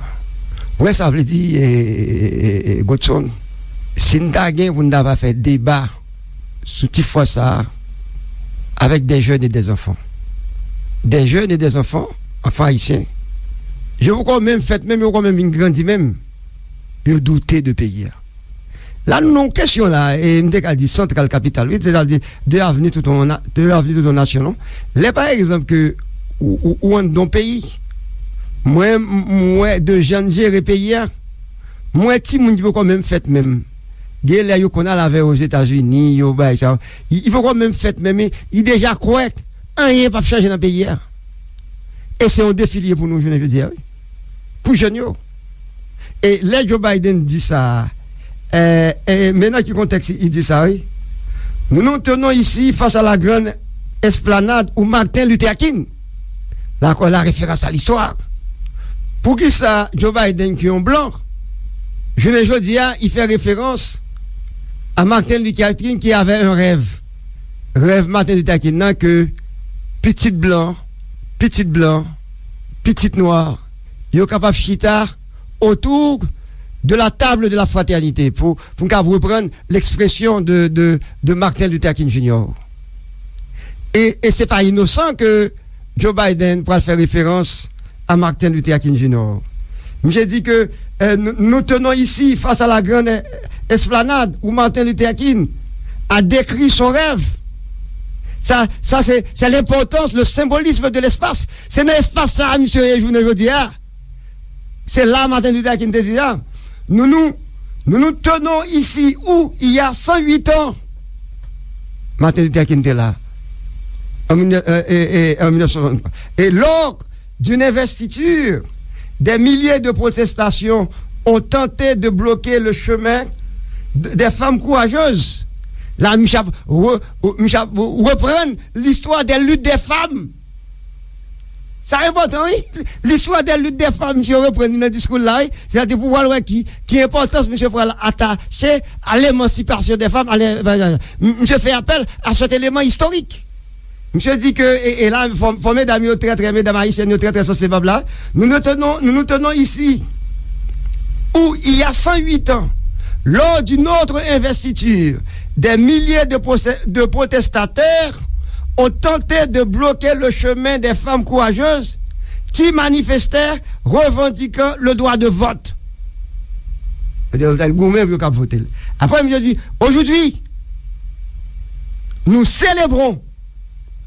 Ou wè sa vle di, e, e, e, e, Godson, si n ta gen pou n ta va fè deba sou ti fraz sa a, avec des jeunes et des enfants. Des jeunes et des enfants, enfants haïtiens. Yo poko menm fèt menm, yo poko menm vin grandi menm. Yo doute de peyi a. La, nou nan yon kesyon la, e m te ka di santral kapital, wi, sètadi de avni tout yon na-, de avni tout yon nasyon, non? Lè, pa egzanp, ke ou, ou, ou anndan yon peyi, mwen, m, m wè de jan n jere peyi a, m wè timoun ki poko menm fèt menm. Gen lè yo konn al avè yo Ozetazini, yo bay sa. Li, li poko menm fèt menm, li, li deja kwè anyen p ap chanje nan peyi a. E se yon defi li ye pou nou jounen jodi a, wi. Pou jèn yo. E lè Joe Biden di sa, e, e, men nan ki kontèks li di sa, wi. Nous nous tenons ici face à la grande esplanade où Martin Luther King, la, la référence à l'histoire. Poukisa Joe Biden, ki yon blan, jounen jodi a, li fè referans a Martin Luther King ki avè yon rèv. Rèv Martin Luther King nan ke pitit blan, pitit blan, pitit nwa, yo kapab chita autour de la table de la fraternité, pou, pou n kapab reprann l'expression de, de, de Martin Luther King Junior. E, e se pa inosan ke Joe Biden pral fè referans a Martin Luther King Junior. Misye di ke, euh, nous, nous tenons ici face à la grande esplanade où Martin Luther King a décrit son rêve. Sa, sa se, se lenpòtans, le symbolisme de l'espace. Se nan espas sa a misye ye jounen jodi a. Se la Martin Luther King te di sa. Nous, nous, nous nous tenons ici où il y a cent huit ans. Martin Luther King te la. En mille neuf, euh, et, et, en mille neuf cent soixante-trois. Et lors d'une investiture, des milliers de protestations ont tenté de bloquer le chemin de, des femmes courageuses. La, misye ap re-, misye ap reprann l'histoire des luttes des femmes. Sa enpòtan, wi. L'histoire des luttes des femmes, misye reprann li nan diskou l la, wi. Sètadi pou w al wè ki, ki enpòtans misye pral atache à l'émancipation des femmes, à l'é-, misye fè apèl à cet élément historique. Misye di ke, e, e la, fò, fò medam yo trè, trè, medam ayisyèn yo trè, trè sansib la. Nous nous tenons, nous nous tenons ici, où il y a cent huit ans, lors d'une autre investiture, des milliers de procès, de protestataires ont tenté de bloquer le chemin des femmes courageuses qui manifestaient revendiquant le droit de vote. Yo di, yo t al goumen pou yo kab vote l. Apre, misye di, aujourd'hui, nous célébrons,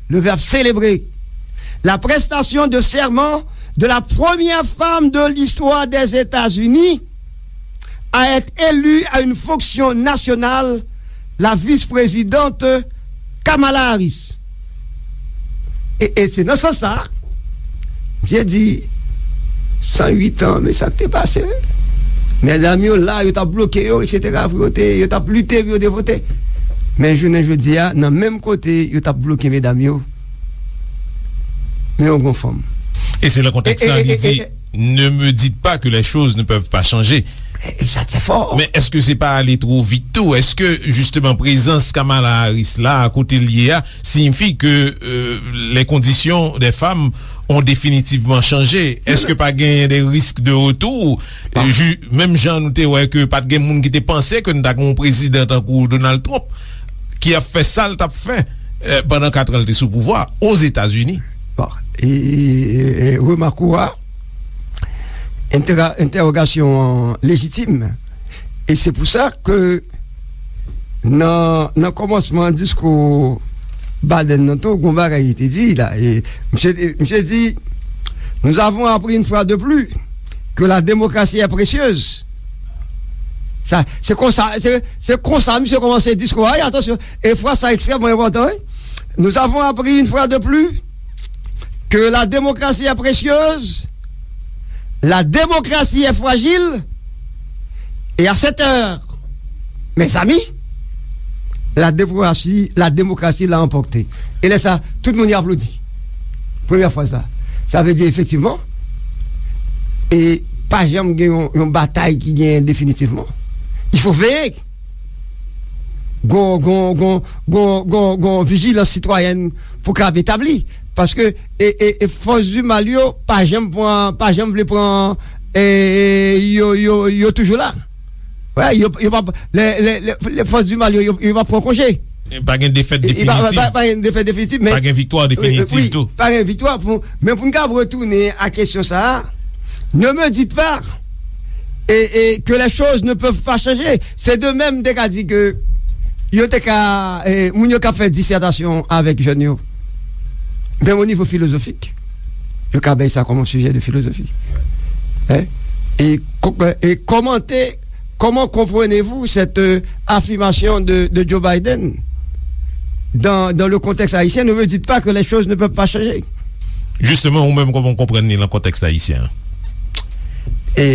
le verbe célébrer, la prestation de serment de la première femme de l'histoire des États-Unis à être élue à une fonction nationale, la vice-présidente Kamala Harris. E, e se nan sans sa, misye di, san uit an, men sa k te pase, wi. Medam yo la, yo t ap bloke yo, et cetera, pou yo te, yo t ap lite pou yo te vote. Men jounen jodi a, nan menm kote yo t ap bloke medam yo, men yo gon fanm. E se nan kontèks sa li di, ne me dites pas que les choses ne peuvent pas changer. E sa te fò. Men èske se pa ale two vit tou? Èske jisteman prezans Kamala Harris la, kote l ye a, siyifi ke euh, les conditions des femmes ont définitivement changé? Èske pa genyen de risk de retour? Menm jan nou te wè ke pa t gen moun ki te panse ke n ta gen yon prezidan tankou Donald Trump ki ap fè sa l t ap fè pandan kat an l te sou pouvwa Ozetazini. Bon, e, e, e, remak ou a, entèga- entèwogasyon an lejitim. E se pou sa ke nan, nan kòmansman diskou Biden nan tou, gon bagay li te di la. E misye, misye di, nous avons appris une fois de plus que la démocratie est précieuse. Sa, se konsa, se, se konsa misye kòmanse diskou a, wi, atansyon. E fraz sa ekstrèmman enpòtan, wi. Nous avons appris une fois de plus que la démocratie est précieuse, la démocratie est fragile, et à cette heure, mes amis, la démocratie, la démocratie l'a emporté. E lè sa, tout moun y aplodi. Premyè fraz la. Sa vle di, efektivman, e pa janm gen yon, yon batay ki genyen definitivman. Il faut veiller. Gon, gon, gon, gon, gon, gon vijilans sitwayèn pou k ap etabli. Paske e, e, e fòs di mal yo pa janm pran, pa janm vle pran e, e, yo, yo, yo toujou la. Wè, yo, yo pa, lè, lè, lè, lè fòs di mal yo, yo, yo pa pran konje. Pa gen defèt definitif. Pa, pa, pa gen defèt definitif, men. Pa gen viktwa definitif tou. Pa gen viktwa, pou, men pou n ka retounen a kesyon sa a, ne me dites pas et, et que les choses ne peuvent pas changer. Se de menm te ka di ke yo te ka, e, moun yo ka fè disètasyon avèk jèn yo. Men o nivo filozofik, yo ka bay sa kòm yon sijè de filozofi. Hein? Et, et commenter Comment comprenez-vous cette euh, affirmation de, de Joe Biden dans, dans le contexte haïtien? Ne me dites pas que les choses ne peuvent pas changer. Jisteman, ou menm, kòman w konprann li nan kontèks ayisyen an? E,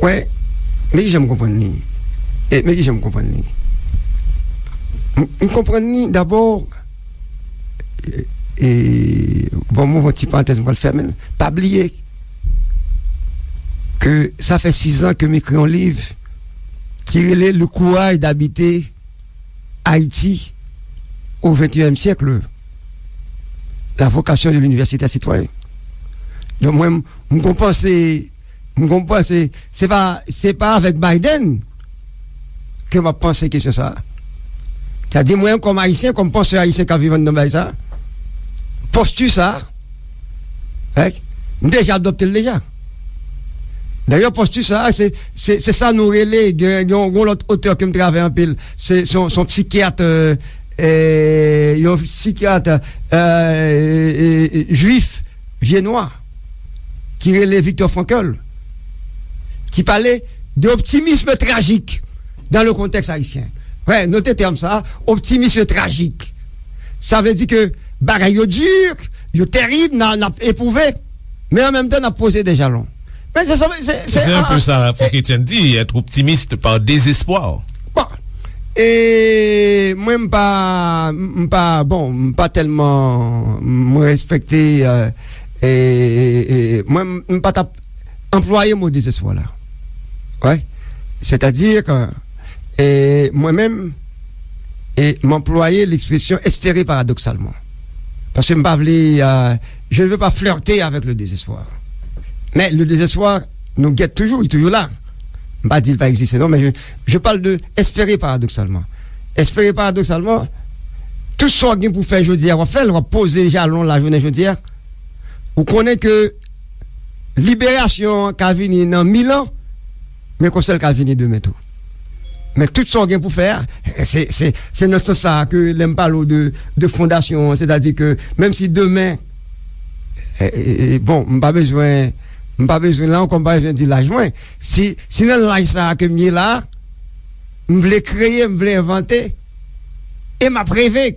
wè, men ki jan m konprann li. E, men ki jan m konprann li. M, m konprann li dabò, e, e, bon, m ouvri yon ti parantèz, m pral fèmen l. Pa bliye ke sa fè sizan ke m ekri yon liv ki rele Le courage d'habiter Haïti au vingt et unième siècle, la vocation de l'université citoyenne. Donk mwen, m gon panse, m gon panse, se pa, se pa avèk Biden ke m ap panse kesyon sa a. Sa di mwen, kòm ayisyen, kòm pansè ayisyen k ap viv anndan bagay sa a, posti sa a, Right? M deja adopte l deja. Dayè, posti sa a, se, se, se sa nou rele, gen, gen yon, yon lòt otè ke m travay anpil, se, se yon, se yon psikyat, euh, euh, yon psikyat, euh, euh, euh, jwif, vye nwa, ki rele Viktor Frankl, ki pale de optimisme trajik dans le contexte haïtien. Wè, note tèm sa a, optimisme trajik. Sa vle di ke bagay yo di, yo terib, n a, n ap epwouve, men an menm tan n ap poze de jalon. Men se, se, se, se, se un peu sa, Franck Etienne di, être optimiste par désespoir. Bon. E mwen m pa, m pa, bon, m pa tèlman, m respekte, euh, e, e, e, mwen m pa t ap anplwaye mo dezespwa la. Wè. Sètadi ke, e, mwen menm, e, m anplwaye lekspresyon espere paradoksalman. Paske m pa vle, euh, je ne veux pas flirter avec le désespoir. Men le désespoir, nou gèt toujou, li toujou la. M pa di l pa egziste, non, men je, je parle de espere paradoksalman. Espere paradoksalman, tout sa w gen pou fè jodi a, w ap fè l, w ap poze jalon la jounen jodi a. Ou konnen ke liberasyon an ka vini nan mil an, men konsa l ka vini demen tou. Men tout sa w gen pou fè a, se, se, se nan sans sa a ke lè m pale w de, de fondasyon an, sètadi ke menm si demen, e, e, e, bon, m pa bezwen, m pa bezwen, la ankò, m pa bezwen di laj mwen. Si, si nan laj sa a ke m ye la, m vle kreye, m vle envante, e m ap reve.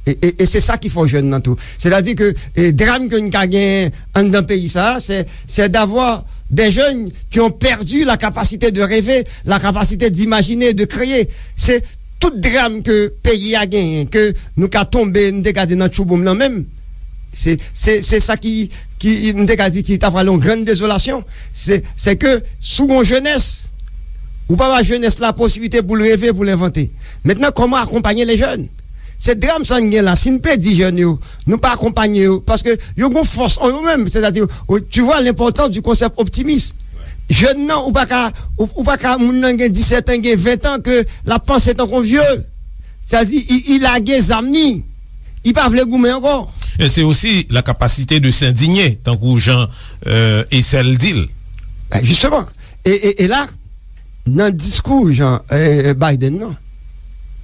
E, e, e se sa ki fò jèn nan tou. Sètadi ke, e, dram ke n ka gen anndan peyi sa a, c'est, c'est d'avoir des jeunes qui ont perdu la capacité de rêver, la capacité d'imaginer, de créer. Se tout dram ke peyi a genyen, ke nou ka tonbe, nou te ka di nan tchouboum nan menm, se, se, se sa ki, ki, m te ka di ki ta pral yon grann dezolasyon. Se, se ke si w gon jenès, ou pa ba jenès la posiblite pou l reve, pou l envante. Mentnan, kòman akonpaye le jèn? Se dram sa n gen la. Si n pèdi jèn yo, nou pa akonpaye yo, paske yo gon fòs an yo menm. Sètadi, ou, tu vois l'importance du concept optimiste. Jèn nan, ou pa ka, ou, ou pa ka, moun nan gen disèt an, gen ven an, ke l ap panse tankou vye. Sètadi, i, i lage zam ni. I pa vle goumen ankò. E se osi la kapasite de s'indigner, tankou jan, euh, Ecel di l. Ben, jisteman. E, e, e la, nan diskou jan, eh, Biden nan,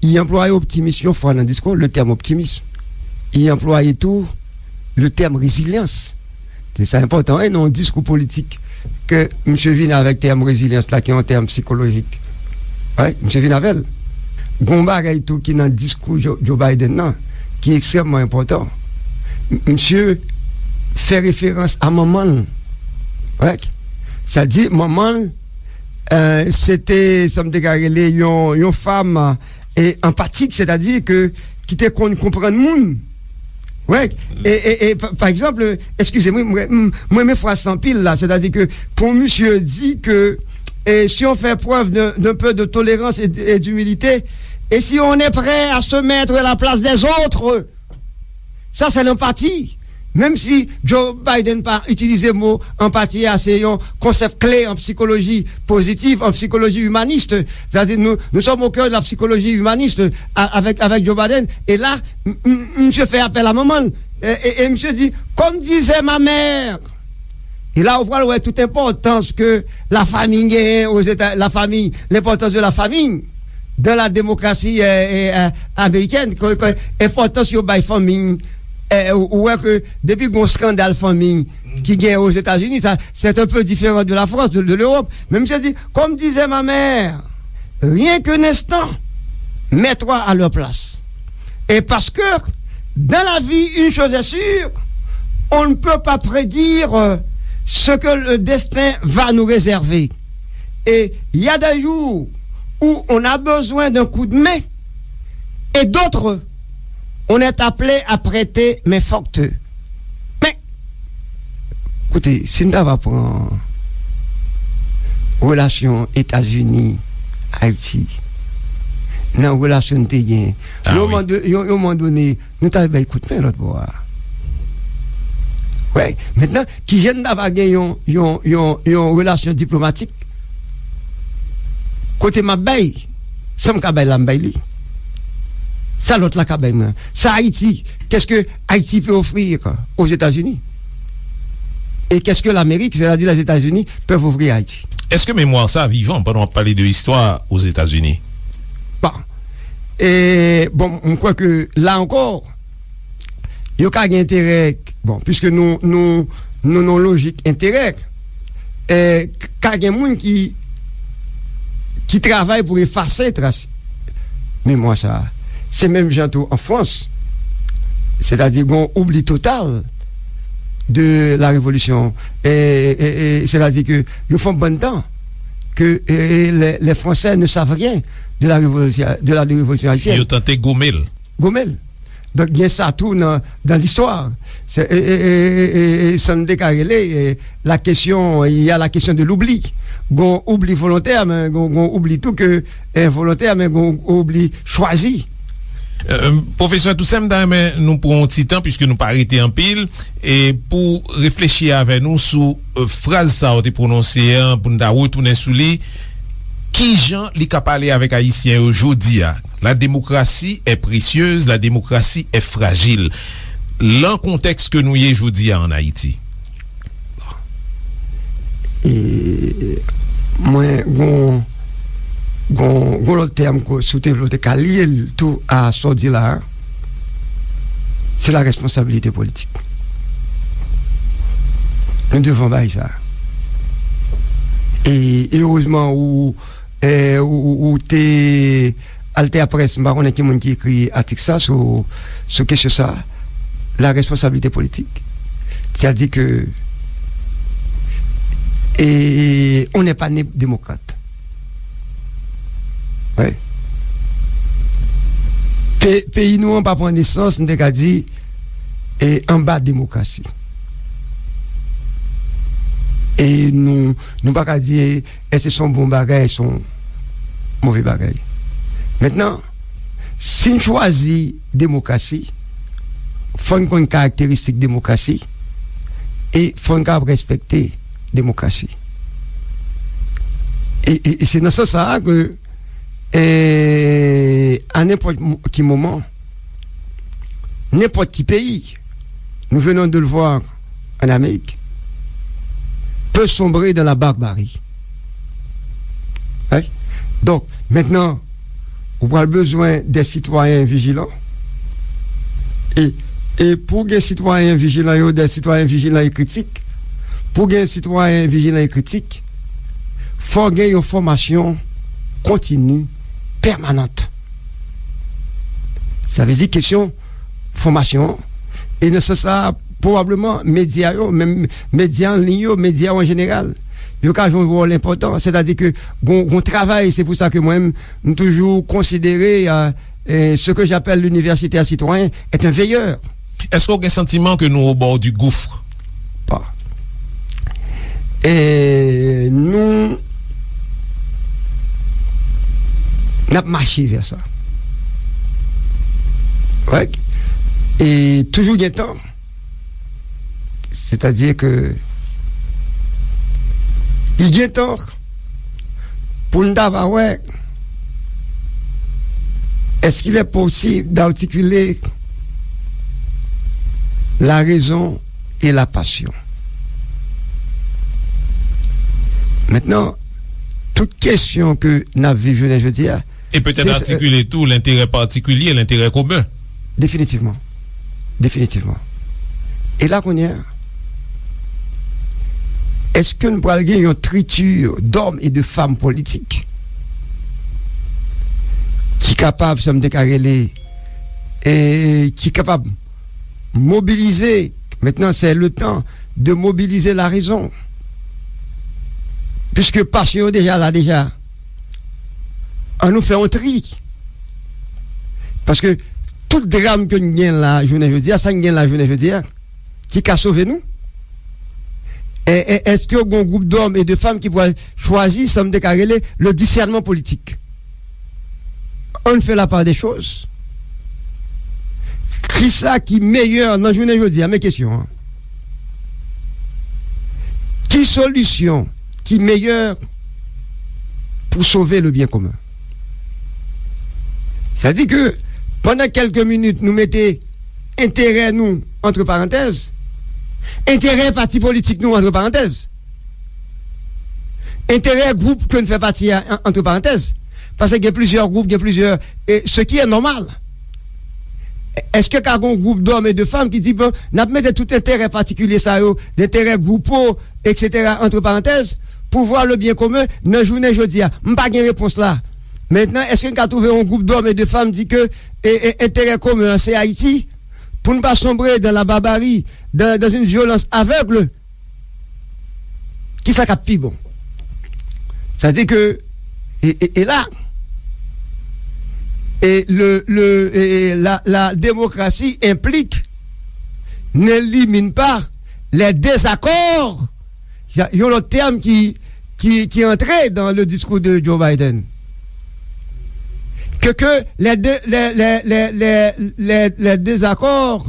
li anplwaye optimis yon fwa nan diskou, le tèm optimis. Li anplwaye tou le tèm rezilyans. Se sa enpòtan, wi, nan yon diskou politik ke misye vin avèk tèm rezilyans la, ki yon tèm sikolojik. Wi, misye vin avè l. Gon bagay tou ki nan diskou Joe, Joe Biden nan, ki ekstrèmman enpòtan. M-, misye fè referans a manman l. Wi. Sa di, manman l, eh, se te, sa m te ka rele yon, yon fanm, eh, anpatik, sètadi ke ki te konn konprann moun. Wi. E, e, e, pa, pa egzanp, eskize mwen, mwen, mwen, mwen renmen fraz sa anpil la, sètadi ke pou misye di ke, eh, si on fait preuve d'un, d'un peu de tolérance et, et d'humilité, et si on est prêt à se mettre à la place des autres, ça, c'est l'empathie. Menm si Joe Biden pa itilize mo anpati a, se yon konsèp kle an sikoloji pozitif, an sikoloji imanis. Sètadi, nous, nous sommes au cœur de la psychologie humaniste a-, avec, avec Joe Biden. E la, m-, m-, misye fè apèl a manman l. E, e, e misye di, comme disait ma mère. E la, ou pral wè tout enpòtans ke la famille genyen aux États, la famille, l'importance de la famille dans la démocratie, euh, euh, euh, américaine, ke, ke enpòtans yo bay fanmi, euh, ou, ou wè ke depi gon skandal fanmi ki gen aux États-Unis, ça, c'est un peu différent de la France, de, de l'Europe. Men misye di, comme disait ma mère, rien qu'un instant, mets-toi à leur place. Et parce que dans la vie, une chose est sûre, on ne peut pas prédire, euh, ce que le destin va nous réserver. Et il y a des jours où on a besoin d'un coup de main, et d'autres, on est appelé à prêter main forte. Men, koute, si n ta va pran relasyon Etazini, Ayiti, nan relasyon n te gen, ah, yon moman do-, yon, yon moman done, nou ta bay kout men lòt bò a. Wi, mentnan, kijan n ta va gen yon, yon, yon, yon relasyon diplomatik kote m ap bay, sa m ka bay la, m bay li. Sa lòt la ka bay mwen. Sa Ayiti, qu'est-ce que Haïti peut offrir aux États-Unis? Et qu'est-ce que l'Amérique, c'est-à-dire les États-Unis, peuvent offrir à Haïti? Èske memwa sa vivan pandan w ap pale de istwa Ozetazini? Bon. E, bon, m kwè ke la ankò, yo ka gen enterè, bon, piske nou, nou, nou nan lojik enterè, e, k-, ka gen moun ki, ki travay pou efase tras memwa sa. Se menm jan tou an Frans, sètadi gon oubli total de la révolution. E, e, e, sètadi ke yo fè yon bann tan ke, e, les, les Français ne savent rien de la révolution, de la révolution haïtienne. Yo tante gome l. Gome l. Donk, gen sa tou nan, nan listwa. Se, e, e, e, e, e, sa n te ka rele, e, la kesyon, il y a la question de l'oubli. Gon oubli volontè, men gon, gon oubli tou ke, e, envolontè, men gon oubli chwazi. E, pwofesè Toussaint, m ta renmen nou pran yon ti tan, piske nou pa rete anpil, e pou reflechi avè nou sou, e, fraz sa w te pwononse an, pou n ta retounen sou li. Kijan li ka pale avèk Ayisyen yo jodi a? La démocratie est précieuse, la démocratie est fragile. Lan kontèks ke nou ye jodi a ann Ayiti. E, mwen, gon, gon, gon lòt tèm ke si w te vle, w te ka lye l tou a sa w di la a, se la responsabilité politique. Nou devan bay sa. E, e erezman, ou, e, ou, ou, ou te Alter Presse, m pa konnen ki moun ki ekri atik sa sou, sou kesyon sa, la responsabilité politique. C'est-à-dire que, et on n'est pas né démocrate. Ouais. Pe-, peyi nou an pa pran nesans, nou te ka di, e, anba demokrasi. E nou, nou pa ka di, e, èske se yon bon bagay, èske se yon move bagay. Mentnan, si n chwazi demokrasi, fò n konn karakteristik demokrasi, e fò n kapab respekte demokrasi. E, e, e se nan sans sa a ke, e, a nenpòt mo-, ki moman, nenpòt ki peyi, nous venons de le voir en Amérique, peut sombrer dans la barbarie. Right? Donk, mentnan, ou pral bezwen de sitwayen vijilan. E, e pou gen sitwayen vijilan yo, de sitwayen vijilan e kritik, pou gen sitwayen vijilan e kritik, fò gen yon fòmasyon kontini, pèmanant. Sa vle di kesyon fòmasyon an. E nan sans sa, pwobableman, medya yo, menm medya an liy yo, medya yo an jeneral, yo ka jwe yon wòl enpòtan. Sètadi ke gon, gon travay, se pou sa ke mwen, m toujou konsidere, euh, euh, ce que j'appelle l'universitaire citoyen est un veilleur. Èske w gen santiman ke nou au bord du gouffre? Pa. E nou, n ap mache vè sa. Right? E toujou gen tan. Sètadi ke li gen tan pou n ta va wè, est-ce qu'il est possible d'articuler la raison et la passion? Mentnan, tout kesyon ke n ap viv jounen jodi a, e petèt se, atikile tou lenterè patikilye, lenterè komen. Definitivman. Definitivman. E la kounye a, èske n pral gen yon triti d'hommes et de femmes politiques ki kapab, sa m te ka rele, e ki kapab mobilize, maintenant c'est le temps de mobiliser la raison. Puiske pasyon yo deja la deja. An nou fè yon tri. Paske tout dram ke n gen la jounen jodi a, sa n gen la jounen jodi a, ki ka sove nou? E, e, èske yon gwoup d'hommes et de femmes ki pral chwazi sa m te ka rele le discernement politique? Ann fè la part des choses. Kisa ki meyè nan jounen jodi a? Men kesyon an. Ki solisyon ki meyè pou sove le bien commun? Sa di ke pandan kèlke minit nou mete enterè nou antre parantèz, enterè pati politik nou antre parantèz, enterè gwoup ke n fè pati a an-, antre parantèz, paske gen plizyè gwoup, gen plizyè, e, ce qui est normal. Èske ka gon gwoup d'hommes et de femmes ki di, bon, n ap mete tout enterè patikilye sa yo, enterè gwoupo, et cetera, antre parantèz, pou vwa le bien commun nan jounen jodi a? M pa gen repons la. Mentnan, èske n ka twouve yon gwoup d'hommes et de femmes di ke, e, e, enterè komen an se Ayiti, pou n pa sonbre dans la barbarie, dans, dans une violence aveugle? Kisa k ap pi bon? Sa di ke, e, e, e la, e le, le, e, e la, la démocratie implique, n'élimine pas les désaccords. Y a, yon lòt tèm ki, ki, ki antre dans le discours de Joe Biden. Que, que les dé-, les, les, les, les, les, les désaccords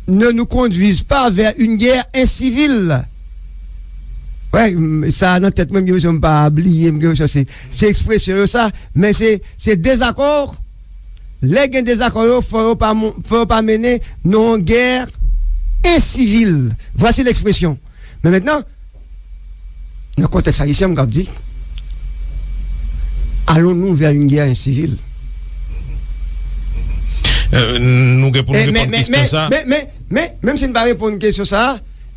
ne nous conduisent pas vers une guerre incivile. Wè, m, sa nan tèt mwen, m gen enpresyon m pa bliye, m gen enpresyon se, se ekspresyon yo sa, men se, se dezakò. Lè gen dezakò yo, fò yo pa mon-, fò yo pa mennen nan yon gè ensivil. Voici l'expression. Men mentnan, nan kontèks ayisyen, m kab di, allons-nous vers une guerre incivile? Euh, nou gen pou nou reponn kesyon sa. Men, men, men, men, menm si n pa reponn kesyon sa,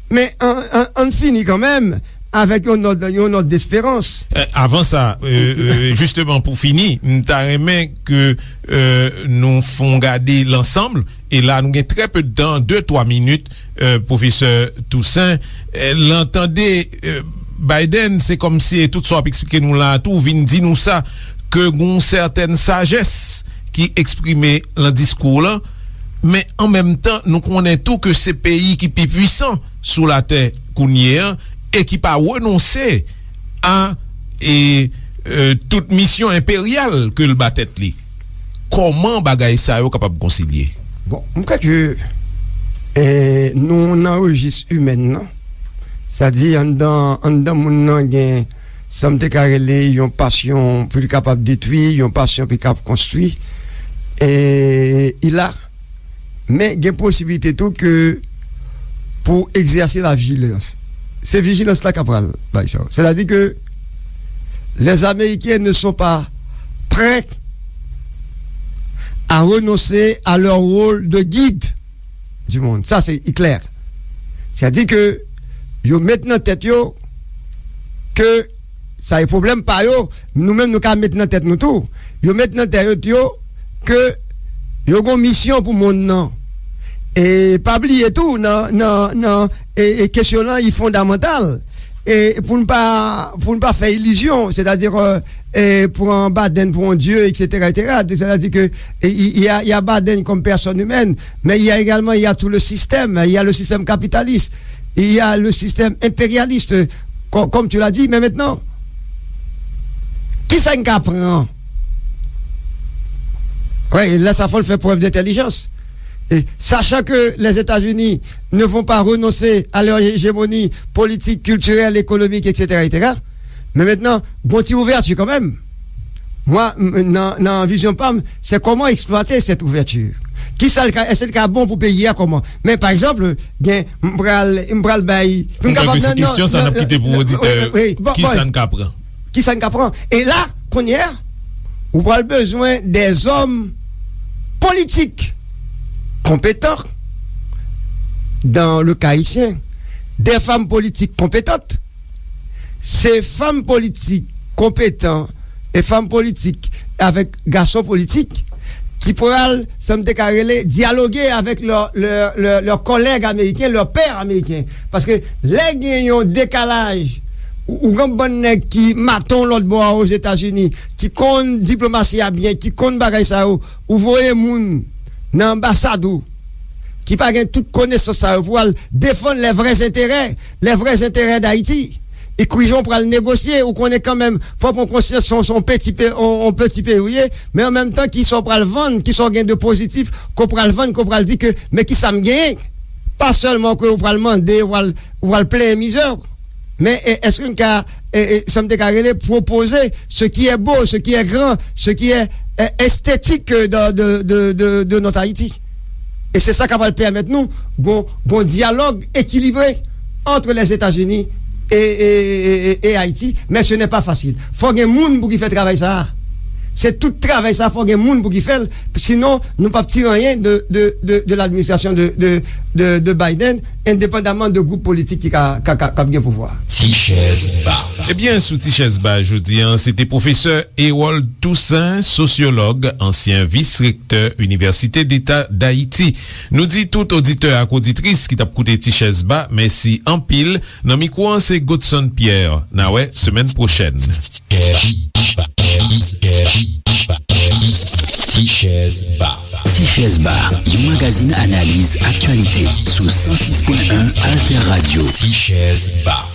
men an, an, ann fini kanmenm avèk yon nòt, yon nòt desperans. Eh, avan sa, euh, euh, jisteman pou fini, m ta renmen ke, euh, nou fè yon gade lansanm, e la nou gen trè pe de tan, de, twa minit, euh, pwofesè Toussaint. Euh, lè n tande, euh, Biden, se kòmsi tout sa w ap eksplike nou la a tou, vin di nou sa, ke gon sètèn sajès li eksprime lan diskou w lan, men an menm tan, nou konnen tou ke se peyi ki pi pwisan sou latè kounye a e ki pa renonse a, e, e, tout misyon enperyal ke l ba tèt li. Kòman bagay sa yo kapab konsilye? Bon, m kwè ke, e, nou nan rejis imèn nan. Sa di, anndan, anndan moun nan gen sa m te ka rele yon pasyon pou li kapab detwi, yon pasyon pou li kapab konstwi. E, il a, men gen posibilite tou ke pou egzèse la vijilans. Se vijilans la k ap pral bay sa yo. Sètadi ke les Américains ne sont pas prêts à renoncer à leur rôle de guide du monde. Sa, se klè. Sètadi ke yo met nan tèt yo ke sa e pwoblèm pa yo, nou menm nou ka met nan tèt nou tou. Yo met nan tèt yo ke yo gon misyon pou monn nan. E pa bliye tou, nan, nan, nan, e, e kesyon lan, li fondamantal. E pou n pa, pou n pa fè ilizyon, sètadi, e, pran Biden pou yon dye, et cetera, et cetera. Sètadi ke, e, il y a, il y a Biden comme personne humaine, mais il y a également, il y a tout le système, il y a le système capitaliste, il y a le système impérialiste, comme, comme tu l'as dit, mais maintenant, kisa n ka pran? Wi, la, sa fò l fè prèv dentèlijans. E, sachant que les États-Unis ne vont pas renoncer à leur hégémonie politique, culturelle, économique, et cetera, et cetera. Men mentnan, gon ti ouvèti kanmenm. Mwen, m, nan, nan vizyon pa m, se kòman eksplwate sèt ouvèti. Kisa l ka, èske l ka bon pou peyi a, kòman? Men, pa egzanp, gen, m pral, m pral bay, m kapab nan, nan, kesyon sa, n ap kite pou oditè, wi, wi, wi, bon, kisa n ka pran? Kisa n ka pran? E la, kounye a, ou pral bezwen dèzòm politik konpetan, dans le cas haïtien, des femmes politiques compétentes, se fanm politik konpetan e fanm politik avèk gason politik ki pral, sa m te ka rele, dyaloge avèk lè, lè, lè, lè kòlèg ameriken, lè pè ameriken. Paske lè gen yon dekalaj, ou, ou gen bann nèg ki maton lòt bò a Ozetazini, ki konn diplomasi a byen, ki konn bagay sa yo, ou voye moun nan anbasad ou, ki pa gen tout konesans sa yo pou al defann les vrais intérêts, les vrais intérêts d'Haïti. Ekrivan pral negosye, ou konnen kanmenm, fò pran konsyans se yon, se yon peti pe-, yon, yon peti peyi ou ye, men an menm tan, kisa w pral vann, kisa w gen de pozitif, ke w pral vann, ke w pral di ke, men kisa m genyen? Pa sèlman ke w pral mande, w pral, w pral plenyen mizè w. Men, e, èske n ka, e, e, sa m te ka rele, pwopoze ce qui est beau, ce qui est grand, ce qui est, e, esthétique de, de, de, de, de notre Haïti? E se sa k ap pral pèmèt nou gon, gon dyalòg ekilibre entre les États-Unis et, et, et, et, et Haïti, mais ce n'est pas facile. Fò gen moun pou ki fè travay sa a. Se tout travay sa a, fò gen moun pou ki fè l, sinon nou p ap tire anyen de, de, de, de l'administration de, de, de, de Biden, endepandaman de gwoup politik ki ka, ka, ka, k ap gen pouvwa. Ti chèz ba. Ebyen, sou Ti chèz ba jodi a, se te pwofesè Hérold Toussaint, sosyològ, ansyen vis-rektè Inivèsite Deta Dayiti. Nou di tout oditè ak oditris ki t ap koute Ti chèz ba, mèsi anpil. Nan mikwo an, se Godson Pierre. N a wè semèn pwochèn. Ti chèz ba. Ti chèz ba, yon magazin analiz aktyalite sou san sis pwen en Alter Radio. Ti chèz ba.